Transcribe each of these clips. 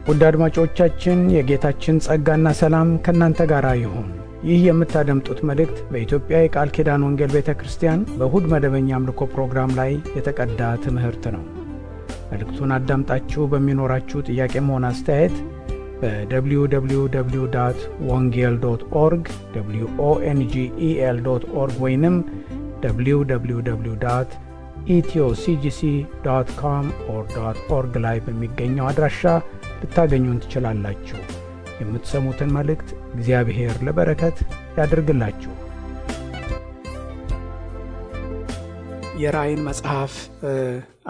ውድ አድማጮቻችን የጌታችን ጸጋና ሰላም ከናንተ ጋር ይሁን። ይህ የምታደምጡት መልእክት በኢትዮጵያ የቃል ኪዳን ወንጌል ቤተክርስቲያን በእሁድ መደበኛ አምልኮ ፕሮግራም ላይ የተቀዳ ትምህርት ነው። መልእክቱን አዳምጣችሁ በሚኖራችሁ ጥያቄም ሆነ አስተያየት በwww.wongel.org wongel.org ወይንም www.ethioCGC.com/org ላይ በሚገኘው አድራሻ ልታገኙን ትችላላችሁ። የምትሰሙትን መልእክት እግዚአብሔር ለበረከት ያድርግላችሁ። የራእይን መጽሐፍ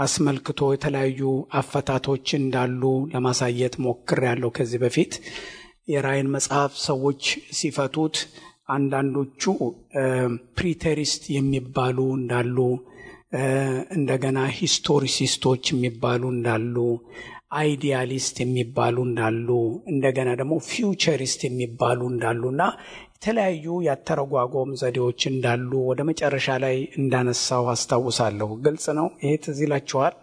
አስመልክቶ የተለያዩ አፈታቶች እንዳሉ ለማሳየት ሞክሬያለሁ። ከዚህ በፊት የራእይን መጽሐፍ ሰዎች ሲፈቱት አንዳንዶቹ ፕሪቴሪስት የሚባሉ እንዳሉ፣ እንደገና ሂስቶሪሲስቶች የሚባሉ እንዳሉ፣ አይዲያሊስት የሚባሉ እንዳሉ፣ እንደገና ደግሞ ፊውቸሪስት የሚባሉ እንዳሉና የተለያዩ ያተረጓጎም ዘዴዎች እንዳሉ ወደ መጨረሻ ላይ እንዳነሳው አስታውሳለሁ። ግልጽ ነው። ይሄ ትዝ ይላችኋል?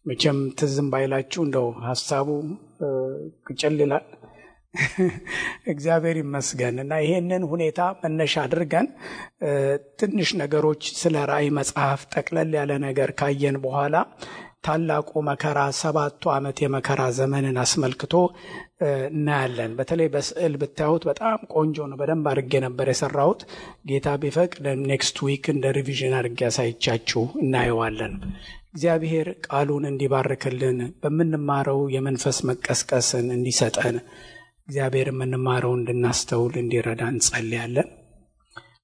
መቼም ትዝም ባይላችሁ እንደው ሐሳቡ ቅጭል ይላል። እግዚአብሔር ይመስገን። እና ይሄንን ሁኔታ መነሻ አድርገን ትንሽ ነገሮች ስለ ራእይ መጽሐፍ ጠቅለል ያለ ነገር ካየን በኋላ ታላቁ መከራ 7ቱ ዓመት የመከራ ዘመንን አስመልክቶ እናያለን። በተለይ በስዕል ብታዩት በጣም ቆንጆ ነው። በደንብ አድርጌ ነበር የሰራሁት። ጌታ ቢፈቅድ ኔክስት ዊክ እንደ ሪቪዥን አድርጌ ያሳይቻችሁ እናየዋለን። እግዚአብሔር ቃሉን እንዲባርክልን በምንማረው የመንፈስ መቀስቀስን እንዲሰጠን እግዚአብሔር የምንማረው እንድናስተውል እንዲረዳ እንጸልያለን።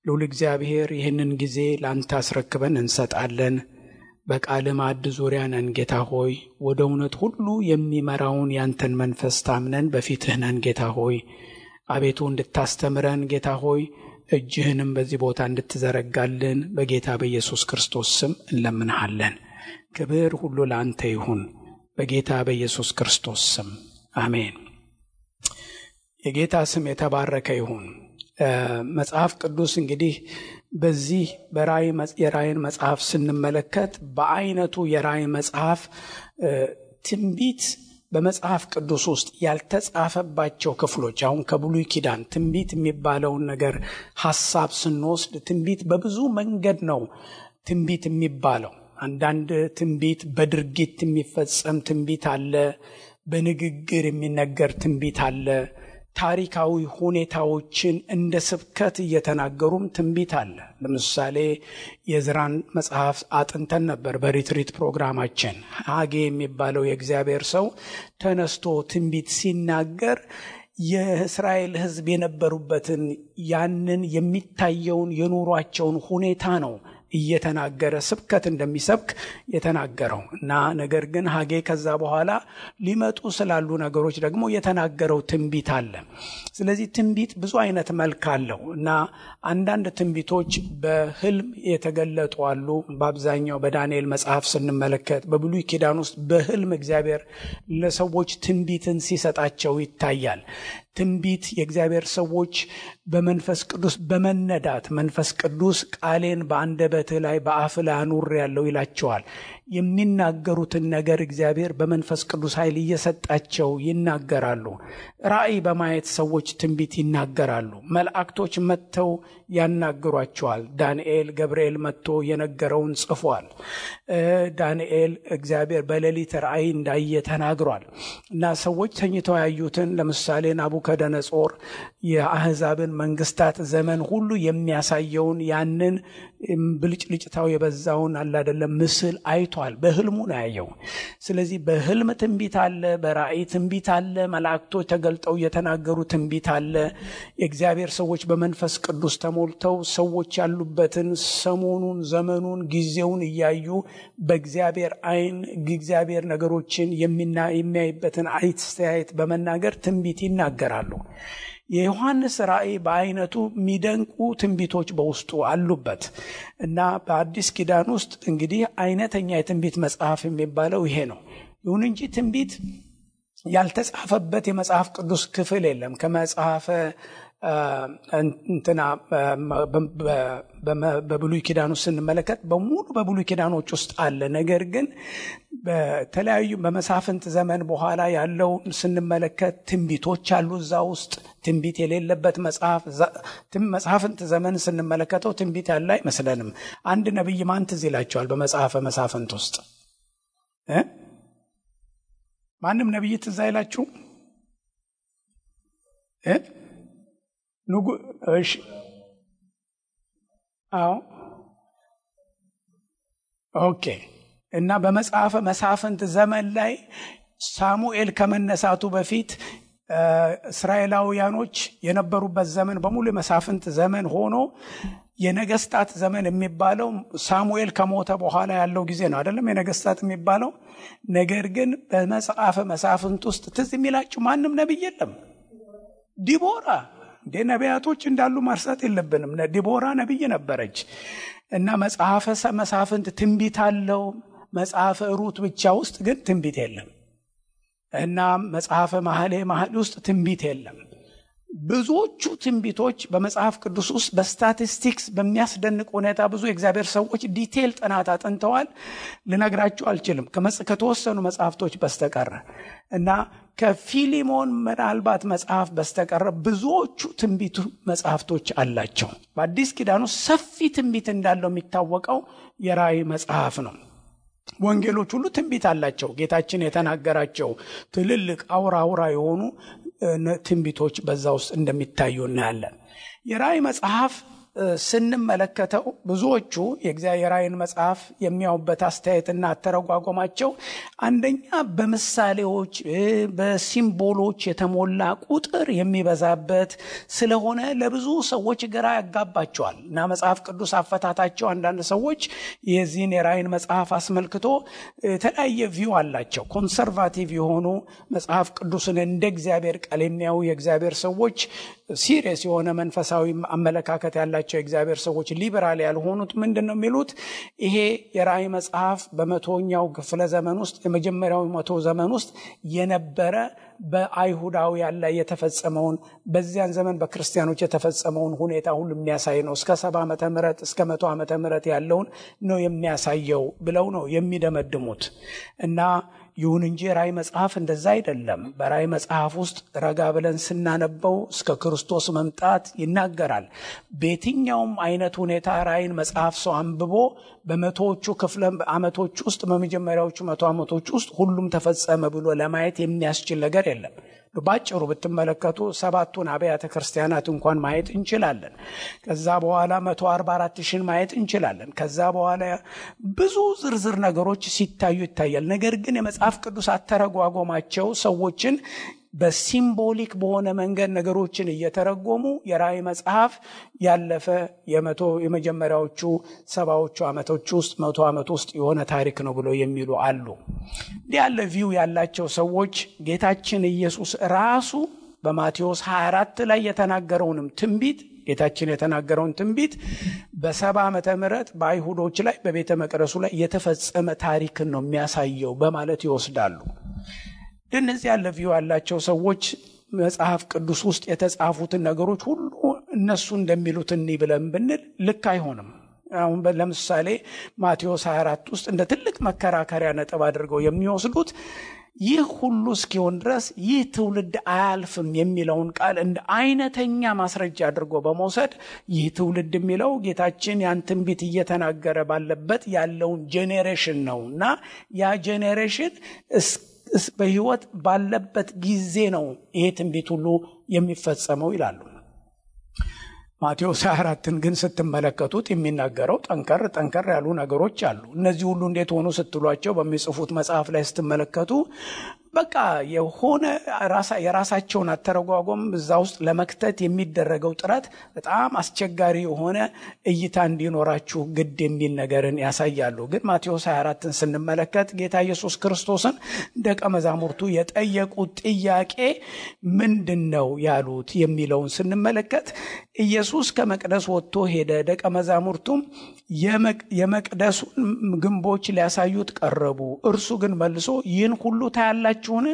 ልዑል እግዚአብሔር ይህንን ጊዜ ላንተ አስረክበን እንሰጣለን። በቃል ማዕድ ዙሪያ ነን ጌታ ሆይ። ወደ እውነት ሁሉ የሚመራውን ያንተን መንፈስ ታምነን በፊትህ ነን ጌታ ሆይ። አቤቱ እንድታስተምረን ጌታ ሆይ፣ እጅህንም በዚህ ቦታ እንድትዘረጋልን በጌታ በኢየሱስ ክርስቶስ ስም እንለምንሃለን። ክብር ሁሉ ለአንተ ይሁን በጌታ በኢየሱስ ክርስቶስ ስም አሜን። የጌታ ስም የተባረከ ይሁን። መጽሐፍ ቅዱስ እንግዲህ በዚህ የራእይን መጽሐፍ ስንመለከት በአይነቱ የራእይ መጽሐፍ ትንቢት በመጽሐፍ ቅዱስ ውስጥ ያልተጻፈባቸው ክፍሎች፣ አሁን ከብሉይ ኪዳን ትንቢት የሚባለውን ነገር ሐሳብ ስንወስድ ትንቢት በብዙ መንገድ ነው ትንቢት የሚባለው። አንዳንድ ትንቢት በድርጊት የሚፈጸም ትንቢት አለ፣ በንግግር የሚነገር ትንቢት አለ፣ ታሪካዊ ሁኔታዎችን እንደ ስብከት እየተናገሩም ትንቢት አለ። ለምሳሌ የዕዝራን መጽሐፍ አጥንተን ነበር በሪትሪት ፕሮግራማችን። ሐጌ የሚባለው የእግዚአብሔር ሰው ተነስቶ ትንቢት ሲናገር የእስራኤል ሕዝብ የነበሩበትን ያንን የሚታየውን የኑሯቸውን ሁኔታ ነው እየተናገረ ስብከት እንደሚሰብክ የተናገረው እና ነገር ግን ሐጌ ከዛ በኋላ ሊመጡ ስላሉ ነገሮች ደግሞ የተናገረው ትንቢት አለ። ስለዚህ ትንቢት ብዙ አይነት መልክ አለው እና አንዳንድ ትንቢቶች በህልም የተገለጡ አሉ። በአብዛኛው በዳንኤል መጽሐፍ ስንመለከት በብሉይ ኪዳን ውስጥ በህልም እግዚአብሔር ለሰዎች ትንቢትን ሲሰጣቸው ይታያል። ትንቢት የእግዚአብሔር ሰዎች በመንፈስ ቅዱስ በመነዳት መንፈስ ቅዱስ ቃሌን በአንደበትህ ላይ በአፍህ ላይ አኑሬአለሁ ይላቸዋል። የሚናገሩትን ነገር እግዚአብሔር በመንፈስ ቅዱስ ኃይል እየሰጣቸው ይናገራሉ። ራእይ በማየት ሰዎች ትንቢት ይናገራሉ። መላእክቶች መጥተው ያናግሯቸዋል። ዳንኤል ገብርኤል መጥቶ የነገረውን ጽፏል። ዳንኤል እግዚአብሔር በሌሊት ራእይ እንዳየ ተናግሯል እና ሰዎች ተኝተው ያዩትን ለምሳሌ ናቡከደነጾር የአሕዛብን መንግስታት ዘመን ሁሉ የሚያሳየውን ያንን ብልጭልጭታው የበዛውን አይደለም ምስል አይቷል። በህልሙ ነው ያየው። ስለዚህ በህልም ትንቢት አለ፣ በራእይ ትንቢት አለ፣ መላእክቶች ተገልጠው የተናገሩ ትንቢት አለ። የእግዚአብሔር ሰዎች በመንፈስ ቅዱስ ተሞልተው ሰዎች ያሉበትን ሰሞኑን፣ ዘመኑን፣ ጊዜውን እያዩ በእግዚአብሔር አይን እግዚአብሔር ነገሮችን የሚያይበትን አስተያየት በመናገር ትንቢት ይናገራሉ። የዮሐንስ ራእይ በአይነቱ የሚደንቁ ትንቢቶች በውስጡ አሉበት እና በአዲስ ኪዳን ውስጥ እንግዲህ አይነተኛ የትንቢት መጽሐፍ የሚባለው ይሄ ነው። ይሁን እንጂ ትንቢት ያልተጻፈበት የመጽሐፍ ቅዱስ ክፍል የለም። ከመጽሐፈ እንትና በብሉይ ኪዳን ውስጥ ስንመለከት በሙሉ በብሉይ ኪዳኖች ውስጥ አለ። ነገር ግን በተለያዩ በመሳፍንት ዘመን በኋላ ያለው ስንመለከት ትንቢቶች አሉ እዛ ውስጥ። ትንቢት የሌለበት መጽሐፍንት ዘመን ስንመለከተው ትንቢት ያለ አይመስለንም። አንድ ነብይ ማን ትዝ ይላቸዋል በመጽሐፈ መሳፍንት ውስጥ? ማንም ነብይ ትዝ አይላችሁ? እሺ አዎ ኦኬ። እና በመጽሐፈ መሳፍንት ዘመን ላይ ሳሙኤል ከመነሳቱ በፊት እስራኤላውያኖች የነበሩበት ዘመን በሙሉ የመሳፍንት ዘመን ሆኖ የነገስታት ዘመን የሚባለው ሳሙኤል ከሞተ በኋላ ያለው ጊዜ ነው አይደለም የነገስታት የሚባለው። ነገር ግን በመጽሐፈ መሳፍንት ውስጥ ትዝ የሚላችሁ ማንም ነብይ የለም። ዲቦራ ነቢያቶች እንዳሉ ማርሳት የለብንም። ዲቦራ ነብይ ነበረች። እና መጽሐፈ መሳፍንት ትንቢት አለው። መጽሐፈ ሩት ብቻ ውስጥ ግን ትንቢት የለም። እና መጽሐፈ መኃልየ ውስጥ ትንቢት የለም። ብዙዎቹ ትንቢቶች በመጽሐፍ ቅዱስ ውስጥ በስታቲስቲክስ በሚያስደንቅ ሁኔታ ብዙ የእግዚአብሔር ሰዎች ዲቴል ጥናት አጥንተዋል። ልነግራችሁ አልችልም ከተወሰኑ መጽሐፍቶች በስተቀር እና ከፊሊሞን ምናልባት መጽሐፍ በስተቀር ብዙዎቹ ትንቢት መጽሐፍቶች አላቸው። በአዲስ ኪዳን ውስጥ ሰፊ ትንቢት እንዳለው የሚታወቀው የራእይ መጽሐፍ ነው። ወንጌሎች ሁሉ ትንቢት አላቸው። ጌታችን የተናገራቸው ትልልቅ አውራ የሆኑ ትንቢቶች በዛ ውስጥ እንደሚታዩ እናያለን። የራእይ መጽሐፍ ስንመለከተው ብዙዎቹ የእግዚአብሔር ራእይን መጽሐፍ የሚያዩበት አስተያየትና አተረጓጎማቸው አንደኛ በምሳሌዎች በሲምቦሎች የተሞላ ቁጥር የሚበዛበት ስለሆነ ለብዙ ሰዎች ግራ ያጋባቸዋል እና መጽሐፍ ቅዱስ አፈታታቸው አንዳንድ ሰዎች የዚህን የራእይን መጽሐፍ አስመልክቶ የተለያየ ቪው አላቸው። ኮንሰርቫቲቭ የሆኑ መጽሐፍ ቅዱስን እንደ እግዚአብሔር ቃል የሚያዩ የእግዚአብሔር ሰዎች ሲሪየስ የሆነ መንፈሳዊ አመለካከት ያላቸው የእግዚአብሔር ሰዎች ሊበራል ያልሆኑት ምንድነው የሚሉት? ይሄ የራእይ መጽሐፍ በመቶኛው ክፍለ ዘመን ውስጥ የመጀመሪያው መቶ ዘመን ውስጥ የነበረ በአይሁዳውያን ላይ የተፈጸመውን በዚያን ዘመን በክርስቲያኖች የተፈጸመውን ሁኔታ ሁሉ የሚያሳይ ነው። እስከ 70 ዓመተ ምህረት እስከ 100 ዓመተ ምህረት ያለውን ነው የሚያሳየው ብለው ነው የሚደመድሙት። እና ይሁን እንጂ ራእይ መጽሐፍ እንደዛ አይደለም። በራእይ መጽሐፍ ውስጥ ረጋ ብለን ስናነበው እስከ ክርስቶስ መምጣት ይናገራል። በየትኛውም አይነት ሁኔታ ራእይን መጽሐፍ ሰው አንብቦ በመቶዎቹ ክፍለ ዓመቶች ውስጥ በመጀመሪያዎቹ 100 ዓመቶች ውስጥ ሁሉም ተፈጸመ ብሎ ለማየት የሚያስችል ነገር የለም። ባጭሩ ብትመለከቱ 7ቱን አብያተ ክርስቲያናት እንኳን ማየት እንችላለን። ከዛ በኋላ 144,000 ማየት እንችላለን። ከዛ በኋላ ብዙ ዝርዝር ነገሮች ሲታዩ ይታያል። ነገር ግን የመጽሐፍ ቅዱስ አተረጓጎማቸው ሰዎችን በሲምቦሊክ በሆነ መንገድ ነገሮችን እየተረጎሙ የራእይ መጽሐፍ ያለፈ የመጀመሪያዎቹ 70ዎቹ ዓመቶች ውስጥ 100 ዓመት ውስጥ የሆነ ታሪክ ነው ብለው የሚሉ አሉ። እንዲህ ያለ ቪው ያላቸው ሰዎች ጌታችን ኢየሱስ ራሱ በማቴዎስ 24 ላይ የተናገረውንም ትንቢት ጌታችን የተናገረውን ትንቢት በ70 ዓመተ ምህረት በአይሁዶች ላይ በቤተ መቅደሱ ላይ የተፈጸመ ታሪክን ነው የሚያሳየው በማለት ይወስዳሉ። እነዚህ ያለ ቪው ያላቸው ሰዎች መጽሐፍ ቅዱስ ውስጥ የተጻፉትን ነገሮች ሁሉ እነሱ እንደሚሉት እንይ ብለን ብንል ልክ አይሆንም። አሁን ለምሳሌ ማቴዎስ 24 ውስጥ እንደ ትልቅ መከራከሪያ ነጥብ አድርገው የሚወስዱት ይህ ሁሉ እስኪሆን ድረስ ይህ ትውልድ አያልፍም የሚለውን ቃል እንደ አይነተኛ ማስረጃ አድርጎ በመውሰድ ይህ ትውልድ የሚለው ጌታችን ያን ትንቢት እየተናገረ ባለበት ያለውን ጄኔሬሽን ነውና ያ ጄኔሬሽን በህይወት ባለበት ጊዜ ነው ይሄ ትንቢት ሁሉ የሚፈጸመው ይላሉ። ማቴዎስ 24ን ግን ስትመለከቱት የሚናገረው ጠንከር ያሉ ነገሮች አሉ። እነዚህ ሁሉ እንዴት ሆኑ ስትሏቸው በሚጽፉት መጽሐፍ ላይ ስትመለከቱ በቃ የሆነ የራሳቸውን አተረጓጎም እዛ ውስጥ ለመክተት የሚደረገው ጥረት በጣም አስቸጋሪ የሆነ እይታ እንዲኖራችሁ ግድ የሚል ነገርን ያሳያሉ። ግን ማቴዎስ 24ን ስንመለከት ጌታ ኢየሱስ ክርስቶስን ደቀ መዛሙርቱ የጠየቁት ጥያቄ ምንድነው ያሉት የሚለውን ስንመለከት ኢየሱስ ከመቅደስ ወጥቶ ሄደ። ደቀ መዛሙርቱም የመቅደሱን ግንቦች ሊያሳዩት ቀረቡ። እርሱ ግን መልሶ ይህን ሁሉ ታያላችሁን?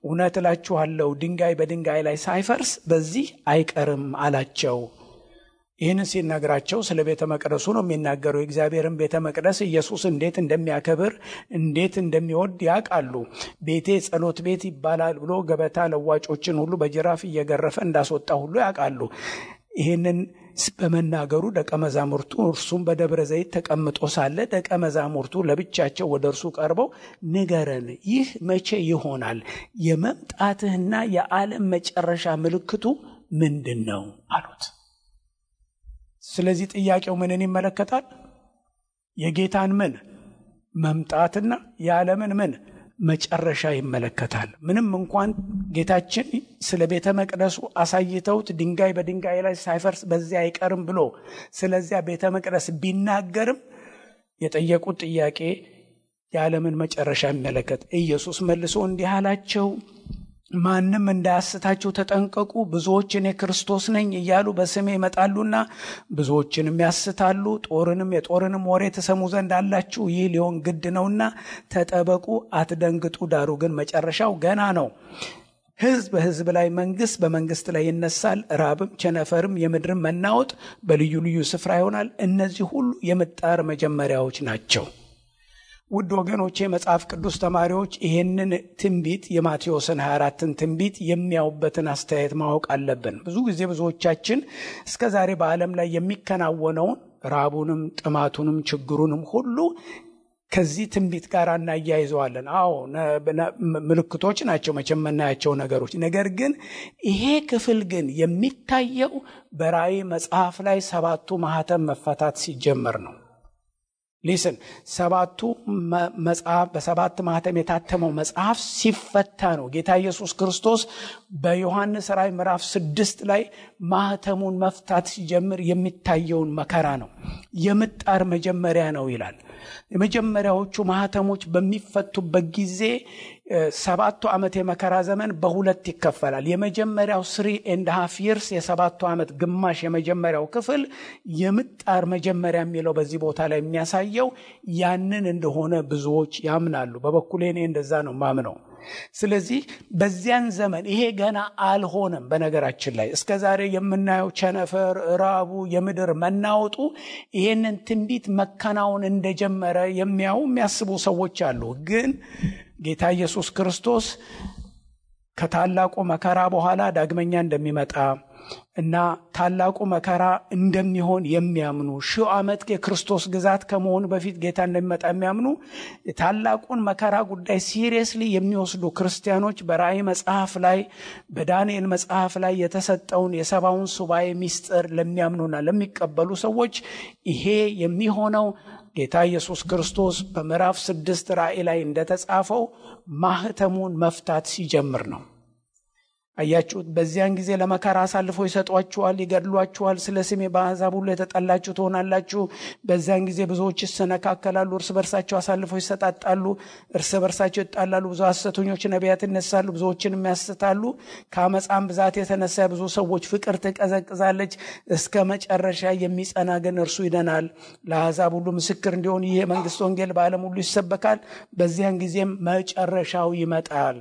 እውነት እላችኋለሁ ድንጋይ በድንጋይ ላይ ሳይፈርስ በዚህ አይቀርም አላቸው። ይህን ሲናገራቸው ስለ ቤተ መቅደሱ ነው የሚናገረው። የእግዚአብሔርን ቤተ መቅደስ ኢየሱስ እንዴት እንደሚያከብር እንዴት እንደሚወድ ያውቃሉ። ቤቴ ጸሎት ቤት ይባላል ብሎ ገበታ ለዋጮችን ሁሉ በጅራፍ እየገረፈ እንዳስወጣ ሁሉ ያውቃሉ። ይህንን በመናገሩ ደቀ መዛሙርቱ እርሱም በደብረ ዘይት ተቀምጦ ሳለ ደቀ መዛሙርቱ ለብቻቸው ወደ እርሱ ቀርበው ንገረን፣ ይህ መቼ ይሆናል? የመምጣትህና የዓለም መጨረሻ ምልክቱ ምንድን ነው አሉት። ስለዚህ ጥያቄው ምንን ይመለከታል? የጌታን ምን መምጣትና የዓለምን ምን መጨረሻ ይመለከታል። ምንም እንኳን ጌታችን ስለ ቤተ መቅደሱ አሳይተውት ድንጋይ በድንጋይ ላይ ሳይፈርስ በዚያ አይቀርም ብሎ ስለዚያ ቤተ መቅደስ ቢናገርም የጠየቁት ጥያቄ የዓለምን መጨረሻ ይመለከት። ኢየሱስ መልሶ እንዲህ አላቸው፣ ማንም እንዳያስታችሁ ተጠንቀቁ። ብዙዎች እኔ ክርስቶስ ነኝ እያሉ በስሜ ይመጣሉና ብዙዎችንም ያስታሉ። የጦርንም ወሬ ተሰሙ ዘንድ አላችሁ። ይህ ሊሆን ግድ ነውና ተጠበቁ፣ አትደንግጡ። ዳሩ ግን መጨረሻው ገና ነው። ሕዝብ በሕዝብ ላይ፣ መንግስት በመንግስት ላይ ይነሳል። ራብም፣ ቸነፈርም፣ የምድርም መናወጥ በልዩ ልዩ ስፍራ ይሆናል። እነዚህ ሁሉ የምጣር መጀመሪያዎች ናቸው። ውድ ወገኖቼ፣ መጽሐፍ ቅዱስ ተማሪዎች ይህንን ትንቢት የማቴዎስን 24ን ትንቢት የሚያዩበትን አስተያየት ማወቅ አለብን። ብዙ ጊዜ ብዙዎቻችን እስከ ዛሬ በዓለም ላይ የሚከናወነውን ራቡንም፣ ጥማቱንም፣ ችግሩንም ሁሉ ከዚህ ትንቢት ጋር እናያይዘዋለን። አዎ ምልክቶች ናቸው መቼም የምናያቸው ነገሮች። ነገር ግን ይሄ ክፍል ግን የሚታየው በራእይ መጽሐፍ ላይ 7ቱ ማህተም መፈታት ሲጀመር ነው። ሊስን ሰባቱ መጽሐፍ በሰባት ማህተም የታተመው መጽሐፍ ሲፈታ ነው። ጌታ ኢየሱስ ክርስቶስ በዮሐንስ ራእይ ምዕራፍ 6 ላይ ማህተሙን መፍታት ሲጀምር የሚታየውን መከራ ነው። የምጣር መጀመሪያ ነው ይላል። የመጀመሪያዎቹ ማህተሞች በሚፈቱበት ጊዜ 7 ዓመት የመከራ ዘመን በሁለት ይከፈላል። የመጀመሪያው 3.5 years የ7 ዓመት ግማሽ የመጀመሪያው ክፍል የምጣር መጀመሪያ የሚለው በዚህ ቦታ ላይ የሚያሳየው ያንን እንደሆነ ብዙዎች ያምናሉ። በበኩሌ እኔ እንደዛ ነው ማምነው። ስለዚህ በዚያን ዘመን ይሄ ገና አልሆነም። በነገራችን ላይ እስከዛሬ የምናየው ቸነፈር፣ ራቡ፣ የምድር መናወጡ ይሄንን ትንቢት መከናወን እንደጀመረ የሚያስቡ ሰዎች አሉ። ግን ጌታ ኢየሱስ ክርስቶስ ከታላቁ መከራ በኋላ ዳግመኛ እንደሚመጣ እና ታላቁ መከራ እንደሚሆን የሚያምኑ 1000 ዓመት የክርስቶስ ግዛት ከመሆኑ በፊት ጌታ እንደሚመጣ የሚያምኑ ታላቁን መከራ ጉዳይ ሲሪየስሊ የሚወስዱ ክርስቲያኖች በራእይ መጽሐፍ ላይ በዳንኤል መጽሐፍ ላይ የተሰጠውን የሰባውን ሱባኤ ሚስጥር ለሚያምኑና ለሚቀበሉ ሰዎች ይሄ የሚሆነው ጌታ ኢየሱስ ክርስቶስ በምዕራፍ 6 ራእይ ላይ እንደተጻፈው ማህተሙን መፍታት ሲጀምር ነው። አያችሁት? በዚያን ጊዜ ለመከራ አሳልፈው ይሰጧችኋል፣ ይገድሏችኋል። ስለ ስሜ በአሕዛብ ሁሉ የተጠላችሁ ትሆናላችሁ። በዚያን ጊዜ ብዙዎች ይሰነካከላሉ፣ እርስ በርሳቸው አሳልፈው ይሰጣጣሉ፣ እርስ በርሳቸው ይጣላሉ። ብዙ ሐሰተኞች ነቢያት ይነሳሉ፣ ብዙዎችንም ያስታሉ። ከአመፃም ብዛት የተነሳ ብዙ ሰዎች ፍቅር ትቀዘቅዛለች። እስከ መጨረሻ የሚጸና ግን እርሱ ይድናል። ለአሕዛብ ሁሉ ምስክር እንዲሆን ይህ የመንግስት ወንጌል በዓለም ሁሉ ይሰበካል። በዚያን ጊዜም መጨረሻው ይመጣል።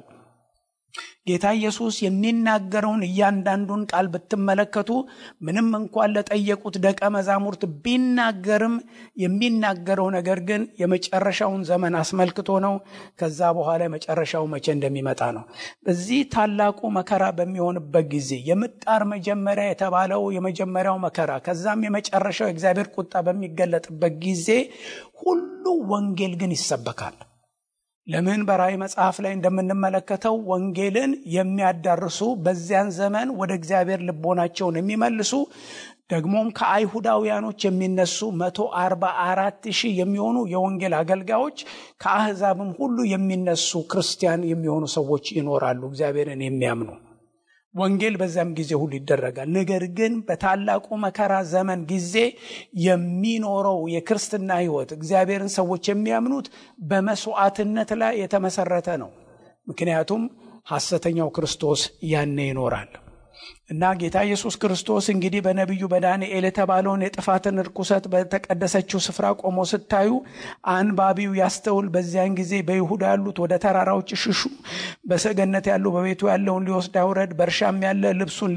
ጌታ ኢየሱስ የሚናገረውን እያንዳንዱን ቃል ብትመለከቱ ምንም እንኳን ለጠየቁት ደቀ መዛሙርት ቢናገርም የሚናገረው ነገር ግን የመጨረሻውን ዘመን አስመልክቶ ነው። ከዛ በኋላ የመጨረሻው መቼ እንደሚመጣ ነው። በዚህ ታላቁ መከራ በሚሆንበት ጊዜ የምጣር መጀመሪያ የተባለው የመጀመሪያው መከራ ከዛም የመጨረሻው የእግዚአብሔር ቁጣ በሚገለጥበት ጊዜ ሁሉ ወንጌል ግን ይሰበካል። ለምን? በራእይ መጽሐፍ ላይ እንደምንመለከተው ወንጌልን የሚያዳርሱ በዚያን ዘመን ወደ እግዚአብሔር ልቦናቸውን የሚመልሱ ደግሞም ከአይሁዳውያኖች የሚነሱ 144,000 የሚሆኑ የወንጌል አገልጋዮች ከአሕዛብም ሁሉ የሚነሱ ክርስቲያን የሚሆኑ ሰዎች ይኖራሉ፣ እግዚአብሔርን የሚያምኑ። ወንጌል በዛም ጊዜ ሁሉ ይደረጋል። ነገር ግን በታላቁ መከራ ዘመን ጊዜ የሚኖረው የክርስትና ሕይወት እግዚአብሔርን ሰዎች የሚያምኑት በመስዋዕትነት ላይ የተመሰረተ ነው። ምክንያቱም ሐሰተኛው ክርስቶስ ያኔ ይኖራል። እና ጌታ ኢየሱስ ክርስቶስ እንግዲህ በነቢዩ በዳንኤል የተባለውን የጥፋትን ርኩሰት በተቀደሰችው ስፍራ ቆሞ ስታዩ አንባቢው ያስተውል። በዚያን ጊዜ በይሁዳ ያሉት ወደ ተራራዎች ሽሹ፣ በሰገነት ያሉ በቤቱ ያለውን ሊወስድ አይውረድ፣ በእርሻም ያለ ልብሱን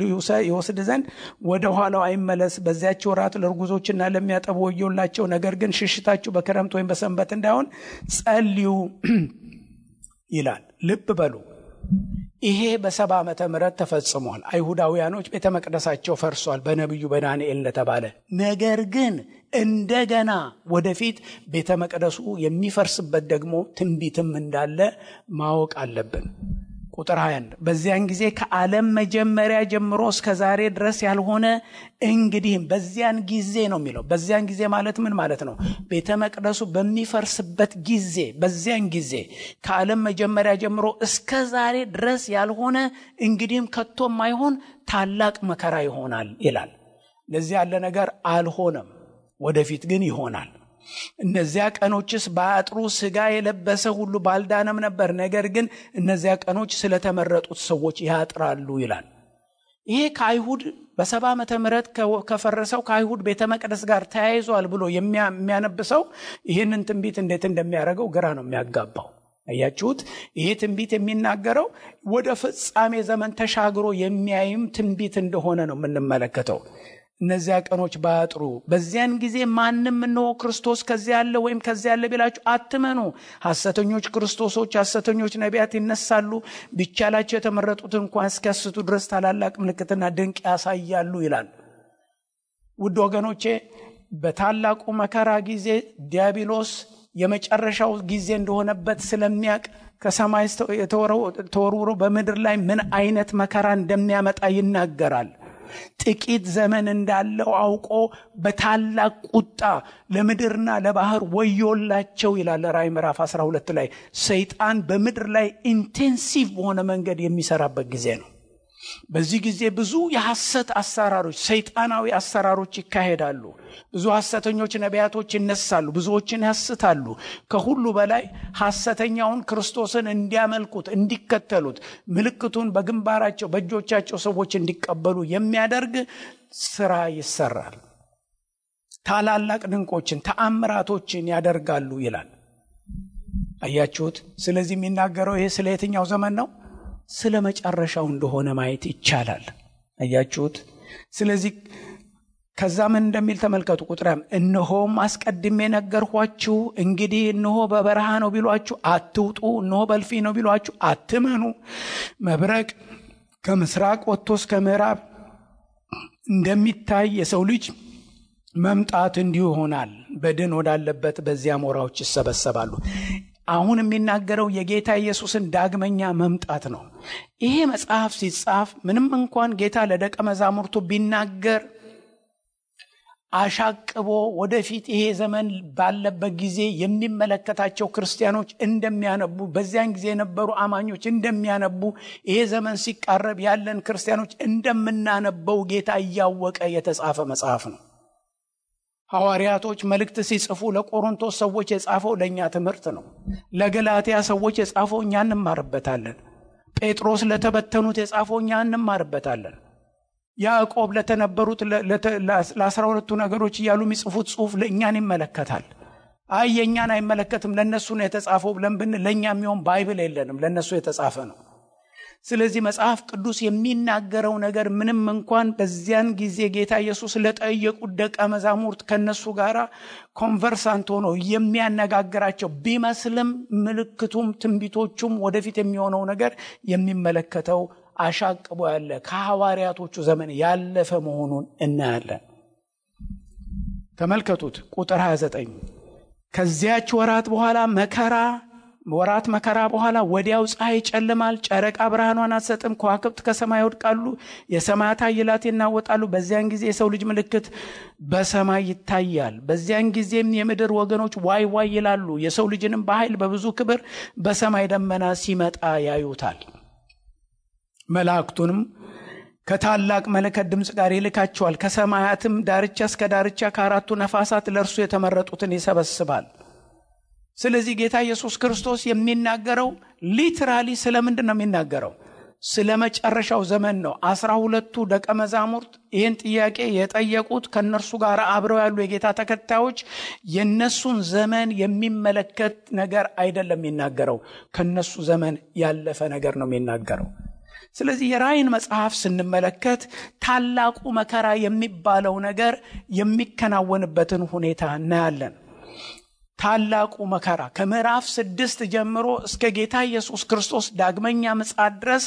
ይወስድ ዘንድ ወደ ኋላው አይመለስ። በዚያች ወራት ለርጉዞችና ለሚያጠቡ ወዮላቸው። ነገር ግን ሽሽታችሁ በክረምት ወይም በሰንበት እንዳይሆን ጸልዩ ይላል። ልብ በሉ፣ ይሄ በ70 ዓመተ ምህረት ተፈጽሟል። አይሁዳውያኖች ቤተ መቅደሳቸው ፈርሷል በነቢዩ በዳንኤል እንደተባለ። ነገር ግን እንደገና ወደፊት ቤተ መቅደሱ የሚፈርስበት ደግሞ ትንቢትም እንዳለ ማወቅ አለብን። ቁጥር 21 በዚያን ጊዜ ከዓለም መጀመሪያ ጀምሮ እስከ ዛሬ ድረስ ያልሆነ እንግዲህም በዚያን ጊዜ ነው የሚለው። በዚያን ጊዜ ማለት ምን ማለት ነው? ቤተ መቅደሱ በሚፈርስበት ጊዜ፣ በዚያን ጊዜ ከዓለም መጀመሪያ ጀምሮ እስከ ዛሬ ድረስ ያልሆነ እንግዲህም ከቶም አይሆን ታላቅ መከራ ይሆናል ይላል። ለዚህ ያለ ነገር አልሆነም፣ ወደፊት ግን ይሆናል። እነዚያ ቀኖችስ ባያጥሩ ሥጋ የለበሰ ሁሉ ባልዳነም ነበር። ነገር ግን እነዚያ ቀኖች ስለተመረጡት ሰዎች ያጥራሉ ይላል። ይሄ ከአይሁድ በ70 ዓመተ ምህረት ከፈረሰው ከአይሁድ ቤተ መቅደስ ጋር ተያይዟል ብሎ የሚያነብሰው ይህንን ትንቢት እንዴት እንደሚያደርገው ግራ ነው የሚያጋባው። አያችሁት? ይሄ ትንቢት የሚናገረው ወደ ፍጻሜ ዘመን ተሻግሮ የሚያይም ትንቢት እንደሆነ ነው የምንመለከተው። እነዚያ ቀኖች ባያጥሩ በዚያን ጊዜ ማንም እነሆ ክርስቶስ ከዚያ ያለ ወይም ከዚያ ያለ ቢላችሁ አትመኑ። ሐሰተኞች ክርስቶሶች፣ ሐሰተኞች ነቢያት ይነሳሉ፣ ቢቻላቸው የተመረጡትን እንኳን እስኪያስቱ ድረስ ታላላቅ ምልክትና ድንቅ ያሳያሉ ይላል። ውድ ወገኖቼ፣ በታላቁ መከራ ጊዜ ዲያብሎስ የመጨረሻው ጊዜ እንደሆነበት ስለሚያውቅ ከሰማይ ተወርውሮ በምድር ላይ ምን አይነት መከራ እንደሚያመጣ ይናገራል። ጥቂት ዘመን እንዳለው አውቆ በታላቅ ቁጣ ለምድርና ለባህር ወዮላቸው ይላል ራዕይ ምዕራፍ 12 ላይ። ሰይጣን በምድር ላይ ኢንቴንሲቭ በሆነ መንገድ የሚሰራበት ጊዜ ነው። በዚህ ጊዜ ብዙ የሐሰት አሰራሮች፣ ሰይጣናዊ አሰራሮች ይካሄዳሉ። ብዙ ሐሰተኞች ነቢያቶች ይነሳሉ፣ ብዙዎችን ያስታሉ። ከሁሉ በላይ ሐሰተኛውን ክርስቶስን እንዲያመልኩት፣ እንዲከተሉት፣ ምልክቱን በግንባራቸው በእጆቻቸው ሰዎች እንዲቀበሉ የሚያደርግ ስራ ይሰራል። ታላላቅ ድንቆችን፣ ተአምራቶችን ያደርጋሉ ይላል። አያችሁት? ስለዚህ የሚናገረው ይሄ ስለ የትኛው ዘመን ነው? ስለ መጨረሻው እንደሆነ ማየት ይቻላል። አያችሁት? ስለዚህ ከዛ ምን እንደሚል ተመልከቱ። ቁጥራም እነሆም አስቀድሜ ነገርኳችሁ፣ እንግዲህ እነሆ በበረሃ ነው ቢሏችሁ አትውጡ፣ እነሆ በልፊ ነው ቢሏችሁ አትመኑ። መብረቅ ከምስራቅ ወጥቶ እስከ ምዕራብ እንደሚታይ የሰው ልጅ መምጣት እንዲሁ ይሆናል። በድን ወዳለበት በዚያ አሞራዎች ይሰበሰባሉ። አሁን የሚናገረው የጌታ ኢየሱስን ዳግመኛ መምጣት ነው። ይሄ መጽሐፍ ሲጻፍ ምንም እንኳን ጌታ ለደቀ መዛሙርቱ ቢናገር አሻቅቦ ወደፊት ይሄ ዘመን ባለበት ጊዜ የሚመለከታቸው ክርስቲያኖች እንደሚያነቡ፣ በዚያን ጊዜ የነበሩ አማኞች እንደሚያነቡ፣ ይሄ ዘመን ሲቃረብ ያለን ክርስቲያኖች እንደምናነበው ጌታ እያወቀ የተጻፈ መጽሐፍ ነው። ሐዋርያቶች መልእክት ሲጽፉ ለቆሮንቶስ ሰዎች የጻፈው ለእኛ ትምህርት ነው። ለገላትያ ሰዎች የጻፈው እኛ እንማርበታለን። ጴጥሮስ ለተበተኑት የጻፈው እኛ እንማርበታለን። ያዕቆብ ለተነበሩት ለ12ቱ ነገሮች እያሉ የሚጽፉት ጽሑፍ ለእኛን ይመለከታል። አይ የእኛን አይመለከትም ለእነሱ ነው የተጻፈው ብለን ብንል ለእኛ የሚሆን ባይብል የለንም፣ ለእነሱ የተጻፈ ነው። ስለዚህ መጽሐፍ ቅዱስ የሚናገረው ነገር ምንም እንኳን በዚያን ጊዜ ጌታ ኢየሱስ ለጠየቁት ደቀ መዛሙርት ከነሱ ጋር ኮንቨርሳንት ሆኖ የሚያነጋግራቸው ቢመስልም ምልክቱም ትንቢቶቹም ወደፊት የሚሆነው ነገር የሚመለከተው አሻቅቦ ያለ ከሐዋርያቶቹ ዘመን ያለፈ መሆኑን እናያለን። ተመልከቱት ቁጥር 29 ከዚያች ወራት መከራ በኋላ ወዲያው ፀሐይ ይጨልማል፣ ጨረቃ ብርሃኗን አትሰጥም፣ ከዋክብት ከሰማይ ይወድቃሉ፣ የሰማያት ኃይላት ይናወጣሉ። በዚያን ጊዜ የሰው ልጅ ምልክት በሰማይ ይታያል። በዚያን ጊዜም የምድር ወገኖች ዋይ ዋይ ይላሉ። የሰው ልጅንም በኃይል በብዙ ክብር በሰማይ ደመና ሲመጣ ያዩታል። መላእክቱንም ከታላቅ መለከት ድምፅ ጋር ይልካቸዋል። ከሰማያትም ዳርቻ እስከ ዳርቻ ከአራቱ ነፋሳት ለእርሱ የተመረጡትን ይሰበስባል። ስለዚህ ጌታ ኢየሱስ ክርስቶስ የሚናገረው ሊትራሊ ስለምንድን ነው የሚናገረው? ስለመጨረሻው ዘመን ነው። 12ቱ ደቀ መዛሙርት ይህን ጥያቄ የጠየቁት ከነርሱ ጋር አብረው ያሉ የጌታ ተከታዮች የነሱን ዘመን የሚመለከት ነገር አይደለም የሚናገረው፣ ከነሱ ዘመን ያለፈ ነገር ነው የሚናገረው። ስለዚህ የራእይን መጽሐፍ ስንመለከት ታላቁ መከራ የሚባለው ነገር የሚከናወንበትን ሁኔታ እናያለን። ታላቁ መከራ ከምዕራፍ 6 ጀምሮ እስከ ጌታ ኢየሱስ ክርስቶስ ዳግመኛ ምጽአት ድረስ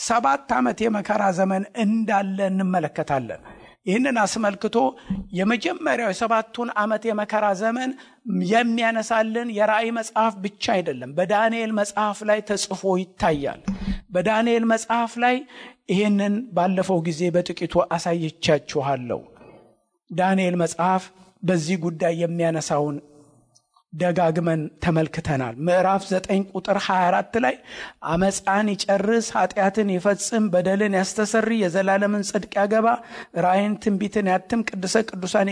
7 ዓመት የመከራ ዘመን እንዳለ እንመለከታለን። ይህንን አስመልክቶ የመጀመሪያው የ7ቱን ዓመት የመከራ ዘመን የሚያነሳልን የራእይ መጽሐፍ ብቻ አይደለም፣ በዳንኤል መጽሐፍ ላይ ተጽፎ ይታያል። በዳንኤል መጽሐፍ ላይ ይህንን ባለፈው ጊዜ በጥቂቱ አሳይቻችኋለሁ። ዳንኤል መጽሐፍ በዚህ ጉዳይ የሚያነሳውን ደጋግመን ተመልክተናል። ምዕራፍ 9 ቁጥር 24 ላይ አመፃን ይጨርስ፣ ኃጢአትን ይፈጽም፣ በደልን ያስተሰሪ፣ የዘላለምን ጽድቅ ያገባ፣ ራእይን ትንቢትን ያትም፣ ቅዱሰ ቅዱሳን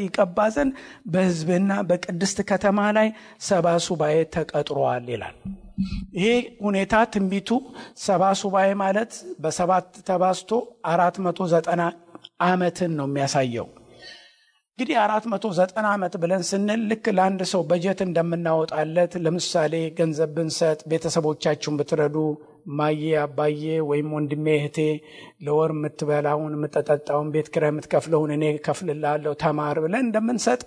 ይቀባ ዘንድ በሕዝብና በቅድስት ከተማ ላይ 70 ሱባኤ ተቀጥሯል ይላል። ይሄ ሁኔታ ትንቢቱ 70 ሱባኤ ማለት በ7 ተባዝቶ 490 ዓመትን ነው የሚያሳየው። እንግዲህ 490 ዓመት ብለን ስንል ልክ ለአንድ ሰው በጀት እንደምናወጣለት፣ ለምሳሌ ገንዘብ ብንሰጥ፣ ቤተሰቦቻችሁን ብትረዱ፣ ማዬ አባዬ ወይም ወንድሜ እህቴ ለወር የምትበላውን የምትጠጣውን ቤት ኪራይ የምትከፍለውን እኔ ከፍልልሃለሁ ተማር ብለን እንደምንሰጥ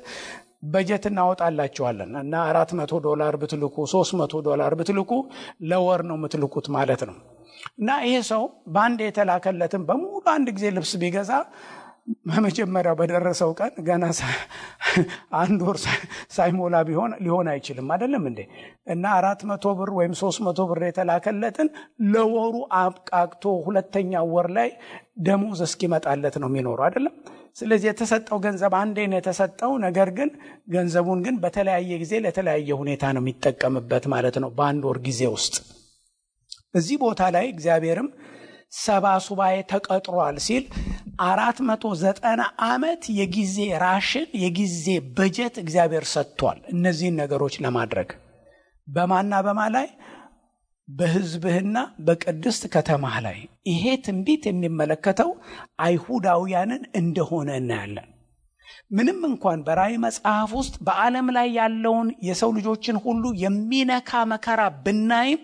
በጀት እናወጣላችኋለን እና $400 ብትልኩ $300 ብትልኩ ለወር ነው የምትልኩት ማለት ነው። እና ይሄ ሰው በአንድ የተላከለትን በሙሉ አንድ ጊዜ ልብስ ቢገዛ በመጀመሪያው በደረሰው ቀን ገና አንድ ወር ሳይሞላ ሊሆን አይችልም አይደለም እንዴ? እና 400 ብር ወይም 300 ብር የተላከለትን ለወሩ አብቃቅቶ ሁለተኛው ወር ላይ ደሞዝ እስኪመጣለት ነው የሚኖረው አይደለም? ስለዚህ የተሰጠው ገንዘብ አንዴ ነው የተሰጠው። ነገር ግን ገንዘቡን ግን በተለያየ ጊዜ ለተለያየ ሁኔታ ነው የሚጠቀምበት ማለት ነው በአንድ ወር ጊዜ ውስጥ። እዚህ ቦታ ላይ እግዚአብሔርም 70 ሱባኤ ተቀጥሯል ሲል 490 ዓመት የጊዜ ራሽን የጊዜ በጀት እግዚአብሔር ሰጥቷል እነዚህን ነገሮች ለማድረግ። በማና በማ ላይ? በሕዝብህና በቅድስት ከተማህ ላይ። ይሄ ትንቢት የሚመለከተው አይሁዳውያንን እንደሆነ እናያለን። ምንም እንኳን በራእይ መጽሐፍ ውስጥ በዓለም ላይ ያለውን የሰው ልጆችን ሁሉ የሚነካ መከራ ብናይም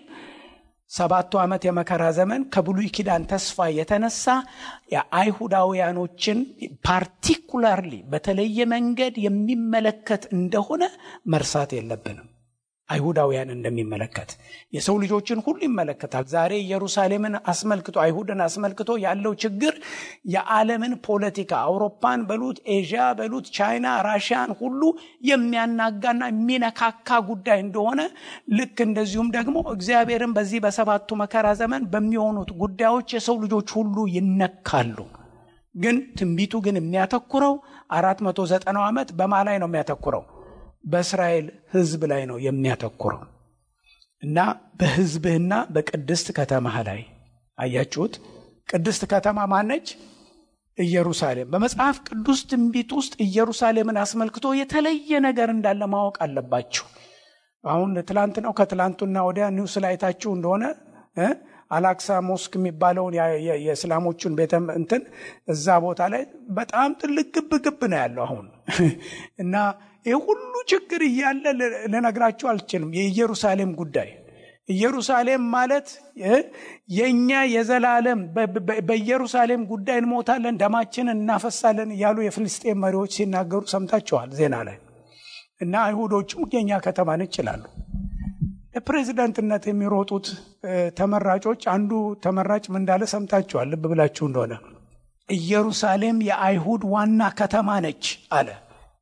7 ዓመት የመከራ ዘመን ከብሉይ ኪዳን ተስፋ የተነሳ የአይሁዳውያኖችን ፓርቲኩላርሊ በተለየ መንገድ የሚመለከት እንደሆነ መርሳት የለብንም። አይሁዳውያን እንደሚመለከት የሰው ልጆችን ሁሉ ይመለከታል። ዛሬ ኢየሩሳሌምን አስመልክቶ አይሁድን አስመልክቶ ያለው ችግር የዓለምን ፖለቲካ አውሮፓን በሉት ኤዥያ በሉት ቻይና ራሽያን ሁሉ የሚያናጋና የሚነካካ ጉዳይ እንደሆነ ልክ እንደዚሁም ደግሞ እግዚአብሔርን በዚህ በሰባቱ መከራ ዘመን በሚሆኑት ጉዳዮች የሰው ልጆች ሁሉ ይነካሉ። ግን ትንቢቱ ግን የሚያተኩረው 490 ዓመት በማ ላይ ነው የሚያተኩረው? በእስራኤል ሕዝብ ላይ ነው የሚያተኩረው እና በሕዝብህና በቅድስት ከተማህ ላይ። አያችሁት? ቅድስት ከተማ ማነች? ኢየሩሳሌም። በመጽሐፍ ቅዱስ ትንቢት ውስጥ ኢየሩሳሌምን አስመልክቶ የተለየ ነገር እንዳለ ማወቅ አለባችሁ። አሁን ትላንት ነው ከትላንቱና ወዲያ ኒውስ ላይ ታችሁ እንደሆነ አላክሳ ሞስክ የሚባለውን የእስላሞቹን ቤተ እንትን እዛ ቦታ ላይ በጣም ትልቅ ግብ ነው ያለው አሁን እና ይሄ ሁሉ ችግር እያለ ልነግራችሁ አልችልም። የኢየሩሳሌም ጉዳይ ኢየሩሳሌም ማለት የኛ የዘላለም በኢየሩሳሌም ጉዳይ እንሞታለን፣ ደማችንን እናፈሳለን እያሉ የፍልስጤም መሪዎች ሲናገሩ ሰምታችኋል ዜና ላይ። እና አይሁዶቹም የኛ ከተማን ይችላሉ። ለፕሬዝዳንትነት የሚሮጡት ተመራጮች አንዱ ተመራጭ ምን እንዳለ ሰምታችኋል ልብ ብላችሁ እንደሆነ። ኢየሩሳሌም የአይሁድ ዋና ከተማ ነች አለ።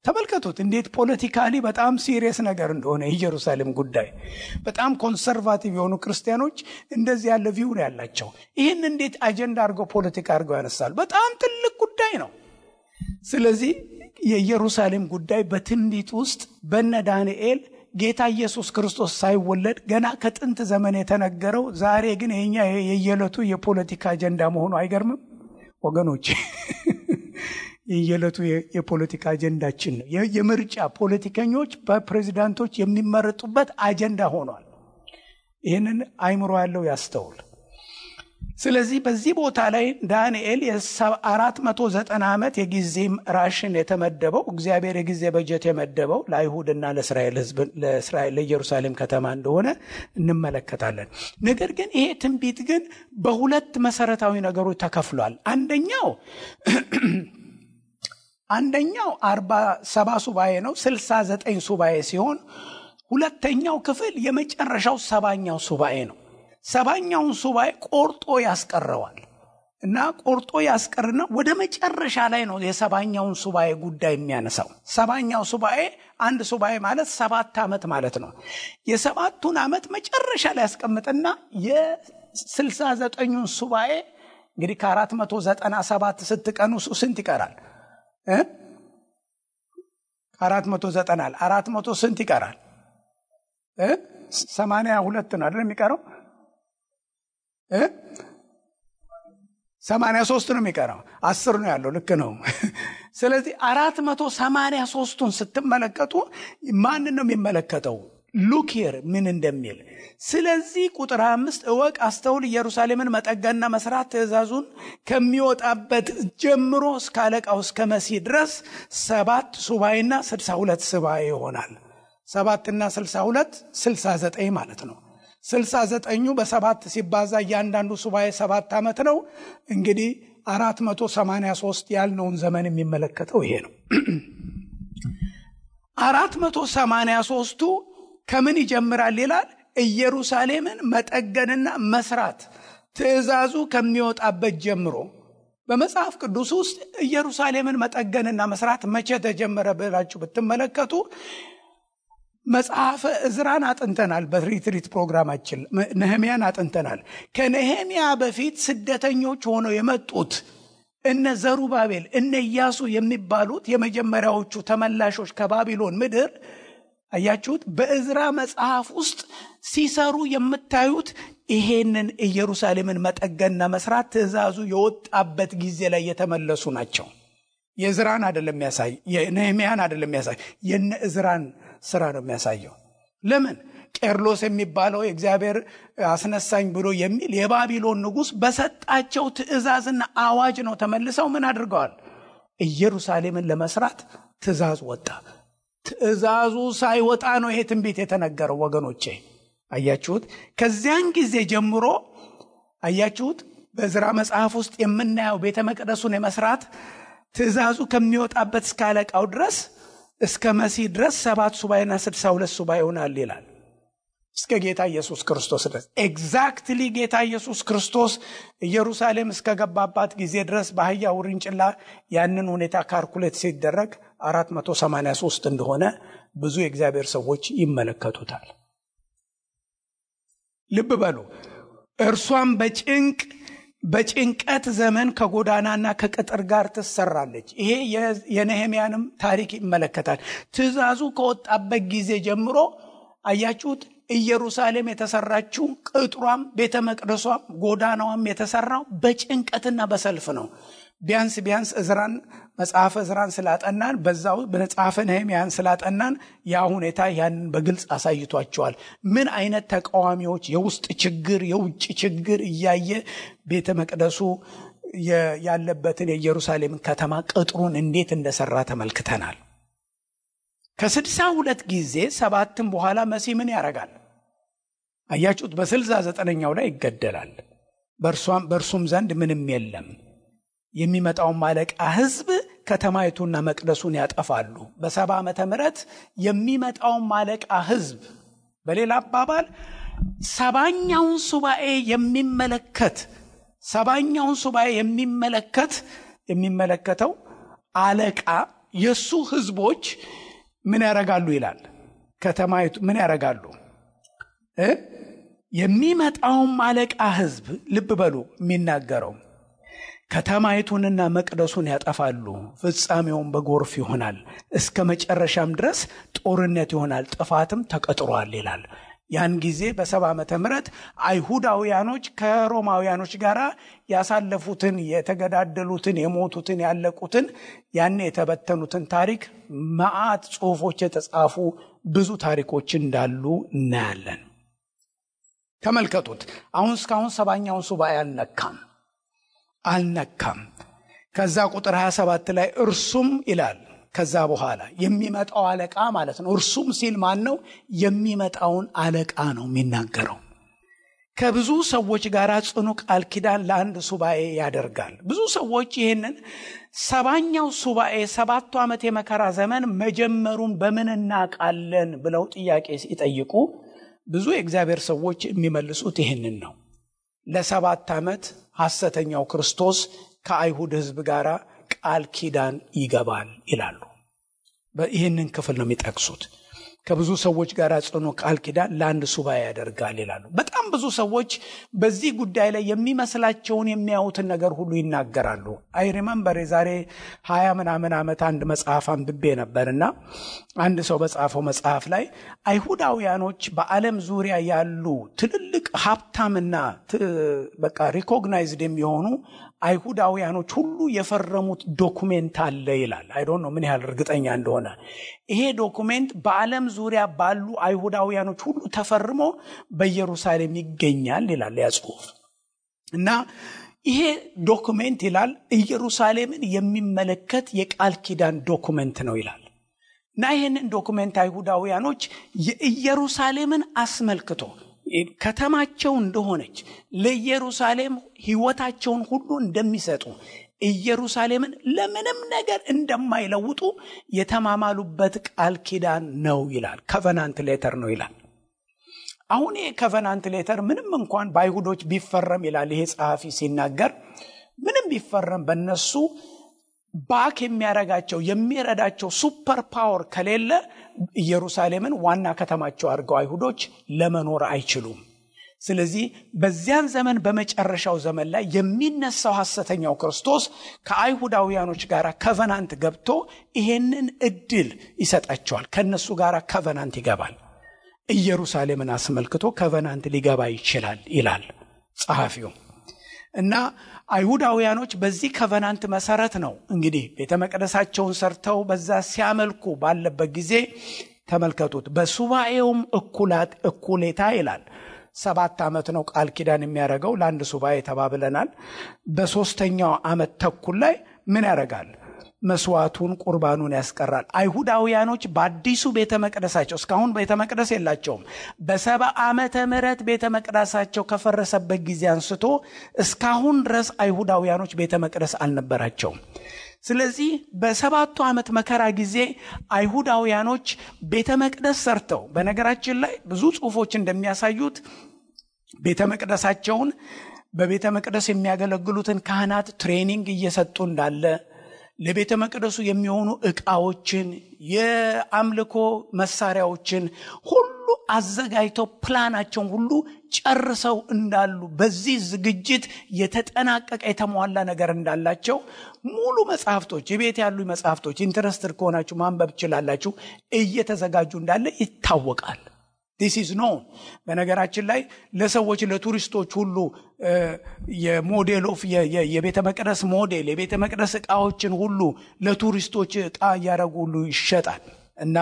ተመልከቱት እንዴት ፖለቲካሊ በጣም ሲሪየስ ነገር እንደሆነ ኢየሩሳሌም ጉዳይ። በጣም ኮንሰርቫቲቭ የሆኑ ክርስቲያኖች እንደዚህ ያለ ቪው ነው ያላቸው። ይህን እንዴት አጀንዳ አድርገው ፖለቲካ አድርገው ያነሳሉ? በጣም ትልቅ ጉዳይ ነው። ስለዚህ የኢየሩሳሌም ጉዳይ በትንቢት ውስጥ በነ ዳንኤል ጌታ ኢየሱስ ክርስቶስ ሳይወለድ ገና ከጥንት ዘመን የተነገረው ዛሬ ግን የኛ የየለቱ የፖለቲካ አጀንዳ መሆኑ አይገርምም ወገኖች? የየለቱ የፖለቲካ አጀንዳችን ነው። የምርጫ ፖለቲከኞች በፕሬዝዳንቶች የሚመረጡበት አጀንዳ ሆኗል። ይህንን አይምሮ ያለው ያስተውል። ስለዚህ በዚህ ቦታ ላይ ዳንኤል የ490 ዓመት የጊዜ ራሽን የተመደበው እግዚአብሔር የጊዜ በጀት የመደበው ለአይሁድና ለእስራኤል ሕዝብ ለኢየሩሳሌም ከተማ እንደሆነ እንመለከታለን። ነገር ግን ይሄ ትንቢት ግን በሁለት መሰረታዊ ነገሮች ተከፍሏል። አንደኛው 47 ሱባኤ ነው፣ 69 ሱባኤ ሲሆን ሁለተኛው ክፍል የመጨረሻው 70ኛው ሱባኤ ነው። 70ኛውን ሱባኤ ቆርጦ ያስቀረዋል እና ቆርጦ ያስቀርና ወደ መጨረሻ ላይ ነው የ70ኛውን ሱባኤ ጉዳይ የሚያነሳው። 70ኛው ሱባኤ አንድ ሱባኤ ማለት 7 ዓመት ማለት ነው። የ7ቱን ዓመት መጨረሻ ላይ ያስቀምጥና የ69ኙን ሱባኤ እንግዲህ ከ497 ስትቀኑ ስንት ይቀራል? 490 400 ስንት ይቀራል? 82 ነው አይደል የሚቀረው? 83 ነው የሚቀረው። 10 ነው ያለው። ልክ ነው። ስለዚህ 483ቱን ስትመለከቱ ማንን ነው የሚመለከተው? ሉክ ሂር ምን እንደሚል። ስለዚህ ቁጥር 5 እወቅ፣ አስተውል፣ ኢየሩሳሌምን መጠገንና መስራት ትእዛዙን ከሚወጣበት ጀምሮ እስከ አለቃው እስከ መሲህ ድረስ 7 ሱባኤና 62 ሱባኤ ይሆናል። 7 እና 62 69 ማለት ነው። 69ኙ በ7 ሲባዛ እያንዳንዱ ሱባኤ 7 ዓመት ነው። እንግዲህ 483 ያልነውን ዘመን የሚመለከተው ይሄ ነው። 483ቱ ከምን ይጀምራል ይላል? ኢየሩሳሌምን መጠገንና መስራት ትእዛዙ ከሚወጣበት ጀምሮ። በመጽሐፍ ቅዱስ ውስጥ ኢየሩሳሌምን መጠገንና መስራት መቼ ተጀመረ ብላችሁ ብትመለከቱ መጽሐፈ ዕዝራን አጥንተናል። በሪትሪት ፕሮግራማችን ነህምያን አጥንተናል። ከነህምያ በፊት ስደተኞች ሆነው የመጡት እነ ዘሩባቤል እነ ኢያሱ የሚባሉት የመጀመሪያዎቹ ተመላሾች ከባቢሎን ምድር አያችሁት? በዕዝራ መጽሐፍ ውስጥ ሲሰሩ የምታዩት ይሄንን ኢየሩሳሌምን መጠገንና መስራት ትእዛዙ የወጣበት ጊዜ ላይ የተመለሱ ናቸው። የዕዝራን አይደለም የሚያሳይ፣ የነህምያን አይደለም የሚያሳይ፣ የነ ዕዝራን ስራ ነው የሚያሳየው። ለምን? ቄርሎስ የሚባለው እግዚአብሔር አስነሳኝ ብሎ የሚል የባቢሎን ንጉስ በሰጣቸው ትእዛዝና አዋጅ ነው ተመልሰው ምን አድርገዋል? ኢየሩሳሌምን ለመስራት ትእዛዝ ወጣ። ትእዛዙ ሳይወጣ ነው ይሄ ትንቢት የተነገረው ወገኖቼ። አያችሁት? ከዚያን ጊዜ ጀምሮ አያችሁት? በዕዝራ መጽሐፍ ውስጥ የምናየው ቤተ መቅደሱን የመስራት ትእዛዙ ከሚወጣበት እስከ አለቃው ድረስ እስከ መሲህ ድረስ 7 ሱባኤና 62 ሱባኤ ይሆናል ይላል። እስከ ጌታ ኢየሱስ ክርስቶስ ድረስ ኤግዛክትሊ ጌታ ኢየሱስ ክርስቶስ ኢየሩሳሌም እስከ ገባባት ጊዜ ድረስ በአህያ ውርንጭላ ያንን ሁኔታ ካልኩሌት ሲደረግ 483 እንደሆነ ብዙ የእግዚአብሔር ሰዎች ይመለከቱታል። ልብ በሉ። እርሷም በጭንቀት ዘመን ከጎዳናና ከቅጥር ጋር ትሰራለች። ይሄ የነህምያንም ታሪክ ይመለከታል። ትእዛዙ ከወጣበት ጊዜ ጀምሮ አያችሁት? ኢየሩሳሌም የተሰራችው ቅጥሯም ቤተ መቅደሷም ጎዳናዋም የተሰራው በጭንቀትና በሰልፍ ነው። ቢያንስ ዕዝራን መጽሐፈ ዕዝራን ስላጠናን በዛው በመጽሐፈ ነህምያን ስላጠናን ያ ሁኔታ ያንን በግልጽ አሳይቷቸዋል። ምን አይነት ተቃዋሚዎች፣ የውስጥ ችግር የውጭ ችግር እያየ ቤተ መቅደሱ ያለበትን የኢየሩሳሌም ከተማ ቅጥሩን እንዴት እንደሰራ ተመልክተናል። ከ62 ጊዜ 7 በኋላ መሲህ ምን ያደርጋል? አያችሁት? በ69ኛው ላይ ይገደላል። በእርሱም ዘንድ ምንም የለም። የሚመጣው ማለቃ ህዝብ ከተማይቱና መቅደሱን ያጠፋሉ። በ70 ዓመተ ምህረት የሚመጣው ማለቃ ህዝብ፣ በሌላ አባባል 70ኛውን ሱባኤ የሚመለከተው አለቃ የሱ ህዝቦች ምን ያረጋሉ ይላል? ከተማይቱ ምን ያረጋሉ? የሚመጣው ማለቃ ህዝብ ልብ በሉ የሚናገረው ከተማይቱንና መቅደሱን ያጠፋሉ። ፍጻሜውን በጎርፍ ይሆናል፣ እስከ መጨረሻም ድረስ ጦርነት ይሆናል፣ ጥፋትም ተቀጥሯል ይላል። ያን ጊዜ በ70 ዓመተ ምህረት አይሁዳውያኖች ከሮማውያኖች ጋር ያሳለፉትን፣ የተገዳደሉትን፣ የሞቱትን፣ ያለቁትን፣ ያን የተበተኑትን ታሪክ መዓት ጽሑፎች የተጻፉ ብዙ ታሪኮች እንዳሉ እናያለን። ተመልከቱት። አሁን እስካሁን 70ኛውን ሱባኤ አልነካም። ከዛ ቁጥር 27 ላይ እርሱም ይላል። ከዛ በኋላ የሚመጣው አለቃ ማለት ነው። እርሱም ሲል ማን ነው? የሚመጣውን አለቃ ነው የሚናገረው። ከብዙ ሰዎች ጋር ጽኑ ቃል ኪዳን ለአንድ ሱባኤ ያደርጋል። ብዙ ሰዎች ይህንን 70ኛው ሱባኤ 7 ዓመት የመከራ ዘመን መጀመሩን በምን እናውቃለን ብለው ጥያቄ ሲጠይቁ ብዙ የእግዚአብሔር ሰዎች የሚመልሱት ይህንን ነው። ለ7 ዓመት ሐሰተኛው ክርስቶስ ከአይሁድ ሕዝብ ጋር ቃል ኪዳን ይገባል ይላሉ። ይህንን ክፍል ነው የሚጠቅሱት። ከብዙ ሰዎች ጋር ጽኑ ቃል ኪዳን ለአንድ ሱባኤ ያደርጋል ይላሉ። በጣም ብዙ ሰዎች በዚህ ጉዳይ ላይ የሚመስላቸውን የሚያዩትን ነገር ሁሉ ይናገራሉ። አይ ሪመምበር የዛሬ 20 ምናምን ዓመት አንድ መጽሐፍ አንብቤ ነበርና አንድ ሰው በጻፈው መጽሐፍ ላይ አይሁዳውያኖች በዓለም ዙሪያ ያሉ ትልልቅ ሀብታምና በቃ ሪኮግናይዝድ የሚሆኑ አይሁዳውያኖች ሁሉ የፈረሙት ዶኩሜንት አለ ይላል። አይ ዶንት ኖ ምን ያህል እርግጠኛ እንደሆነ። ይሄ ዶኩሜንት በዓለም ዙሪያ ባሉ አይሁዳውያኖች ሁሉ ተፈርሞ በኢየሩሳሌም ይገኛል ይላል ያ ጽሑፍ። እና ይሄ ዶኩሜንት ይላል ኢየሩሳሌምን የሚመለከት የቃል ኪዳን ዶኩሜንት ነው ይላል። እና ይሄንን ዶኩሜንት አይሁዳውያኖች የኢየሩሳሌምን አስመልክቶ ከተማቸው እንደሆነች ለኢየሩሳሌም ሕይወታቸውን ሁሉ እንደሚሰጡ ኢየሩሳሌምን ለምንም ነገር እንደማይለውጡ የተማማሉበት ቃል ኪዳን ነው ይላል። ኮቨናንት ሌተር ነው ይላል። አሁን ይሄ ኮቨናንት ሌተር ምንም እንኳን በአይሁዶች ቢፈረም ይላል ይሄ ጸሐፊ ሲናገር፣ ምንም ቢፈረም በእነሱ ባክ የሚያረጋቸው የሚረዳቸው ሱፐር ፓወር ከሌለ ኢየሩሳሌምን ዋና ከተማቸው አድርገው አይሁዶች ለመኖር አይችሉም። ስለዚህ በዚያን ዘመን በመጨረሻው ዘመን ላይ የሚነሳው ሐሰተኛው ክርስቶስ ከአይሁዳውያኖች ጋር ኮቨናንት ገብቶ ይሄንን እድል ይሰጣቸዋል። ከነሱ ጋር ኮቨናንት ይገባል። ኢየሩሳሌምን አስመልክቶ ኮቨናንት ሊገባ ይችላል ይላል ጸሐፊው። እና አይሁዳውያኖች በዚህ ኮቨናንት መሰረት ነው እንግዲህ ቤተ መቅደሳቸውን ሰርተው በዛ ሲያመልኩ ባለበት ጊዜ ተመልከቱት። በሱባኤውም እኩሌታ ይላል 7 ዓመት ነው ቃል ኪዳን የሚያደርገው ለአንድ ሱባኤ ተባብለናል። በ3ኛው ዓመት ተኩል ላይ ምን ያደርጋል? መስዋዕቱን ቁርባኑን ያስቀራል። አይሁዳውያኖች በአዲሱ ቤተ መቅደሳቸው እስካሁን ቤተ መቅደስ የላቸውም። በ70 ዓመተ ምህረት ቤተ መቅደሳቸው ከፈረሰበት ጊዜ አንስቶ እስካሁን ድረስ አይሁዳውያኖች ቤተ መቅደስ አልነበራቸውም። ስለዚህ በ7ቱ ዓመት መከራ ጊዜ አይሁዳውያኖች ቤተ መቅደስ ሰርተው፣ በነገራችን ላይ ብዙ ጽሑፎች እንደሚያሳዩት ቤተ መቅደሳቸውን በቤተ መቅደስ የሚያገለግሉትን ካህናት ትሬኒንግ እየሰጡ እንዳለ፣ ለቤተ መቅደሱ የሚሆኑ ዕቃዎችን የአምልኮ መሳሪያዎችን ሁሉ አዘጋጅተው ፕላናቸውን ሁሉ ጨርሰው እንዳሉ፣ በዚህ ዝግጅት የተጠናቀቀ የተሟላ ነገር እንዳላቸው ሙሉ መጽሐፍቶች የቤት ያሉ መጽሐፍቶች ኢንተረስትድ ከሆናችሁ ማንበብ ትችላላችሁ እየተዘጋጁ እንዳለ ይታወቃል። this is known። በነገራችን ላይ ለሰዎች ለቱሪስቶች ሁሉ የሞዴል ኦፍ የቤተ መቅደስ ሞዴል የቤተ መቅደስ ዕቃዎችን ሁሉ ለቱሪስቶች ዕቃ ያረጉ ሁሉ ይሸጣል እና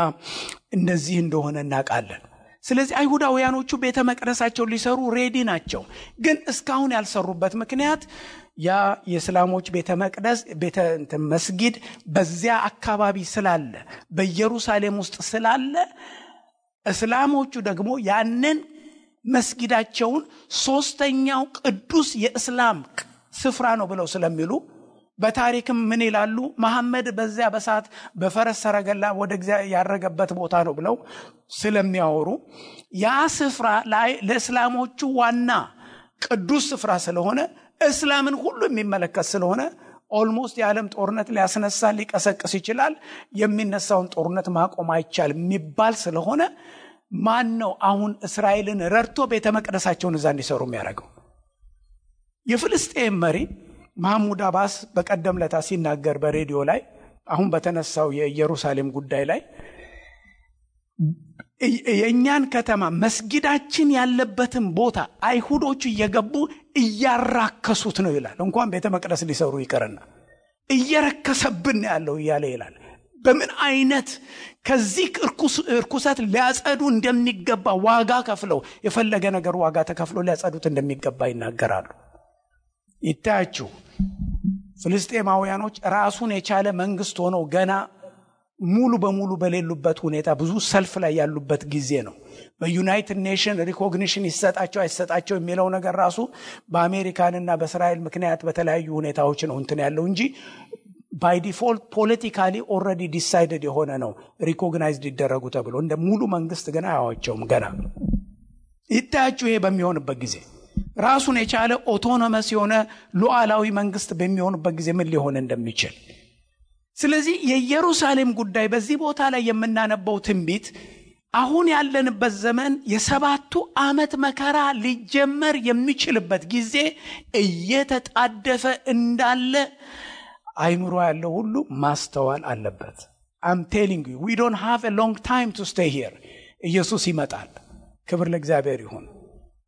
እንደዚህ እንደሆነ እናውቃለን። ስለዚህ አይሁዳውያኖቹ ቤተ መቅደሳቸው ሊሰሩ ሬዲ ናቸው። ግን እስካሁን ያልሰሩበት ምክንያት ያ የእስላሞች ቤተ መቅደስ መስጊድ በዚያ አካባቢ ስላለ በኢየሩሳሌም ውስጥ ስላለ እስላሞቹ ደግሞ ያንን መስጊዳቸውን 3ኛው ቅዱስ የእስላም ስፍራ ነው ብለው ስለሚሉ፣ በታሪክም ምን ይላሉ? መሐመድ በዚያ በሳት በፈረስ ሰረገላ ወደ እግዚአብሔር ያረገበት ቦታ ነው ብለው ስለሚያወሩ ያ ስፍራ ላይ ለእስላሞቹ ዋና ቅዱስ ስፍራ ስለሆነ እስላምን ሁሉ የሚመለከት ስለሆነ ኦልሞስት የዓለም ጦርነት ሊያስነሳ ሊቀሰቅስ ይችላል፣ የሚነሳውን ጦርነት ማቆም አይቻልም የሚባል ስለሆነ ማን ነው አሁን እስራኤልን ረድቶ ቤተ መቅደሳቸውን እዛ እንዲሰሩ የሚያደርገው? የፍልስጤም መሪ መሐሙድ አባስ በቀደም ለታ ሲናገር በሬዲዮ ላይ አሁን በተነሳው የኢየሩሳሌም ጉዳይ ላይ የእኛን ከተማ መስጊዳችን ያለበትን ቦታ አይሁዶቹ እየገቡ እያራከሱት ነው ይላል። እንኳን ቤተ መቅደስ ሊሰሩ ይቀርና እየረከሰብን ያለው እያለ ይላል። በምን አይነት ከዚህ እርኩሰት ሊያጸዱ እንደሚገባ ዋጋ ከፍለው የፈለገ ነገር ዋጋ ተከፍሎ ሊያጸዱት እንደሚገባ ይናገራሉ። ይታያችሁ ፍልስጤማውያኖች ራሱን የቻለ መንግስት ሆነው ገና ሙሉ በሙሉ በሌሉበት ሁኔታ ብዙ ሰልፍ ላይ ያሉበት ጊዜ ነው። በዩናይትድ ኔሽን ሪኮግኒሽን ይሰጣቸው አይሰጣቸው የሚለው ነገር ራሱ በአሜሪካንና በእስራኤል ምክንያት በተለያዩ ሁኔታዎች ነው እንትን ያለው እንጂ ባይ ዲፎልት ፖለቲካሊ ኦልሬዲ ዲሳይድድ የሆነ ነው ሪኮግናይዝድ ይደረጉ ተብሎ እንደ ሙሉ መንግስት ገና አያዋቸውም። ገና ይታያችሁ ይሄ በሚሆንበት ጊዜ ራሱን የቻለ ኦቶኖመስ የሆነ ሉዓላዊ መንግስት በሚሆንበት ጊዜ ምን ሊሆን እንደሚችል። ስለዚህ የኢየሩሳሌም ጉዳይ በዚህ ቦታ ላይ የምናነበው ትንቢት አሁን ያለንበት ዘመን የሰባቱ ዓመት መከራ ሊጀመር የሚችልበት ጊዜ እየተጣደፈ እንዳለ አይምሮ ያለው ሁሉ ማስተዋል አለበት። I'm telling you, we don't have a long time to stay here. ኢየሱስ ይመጣል። ክብር ለእግዚአብሔር ይሁን።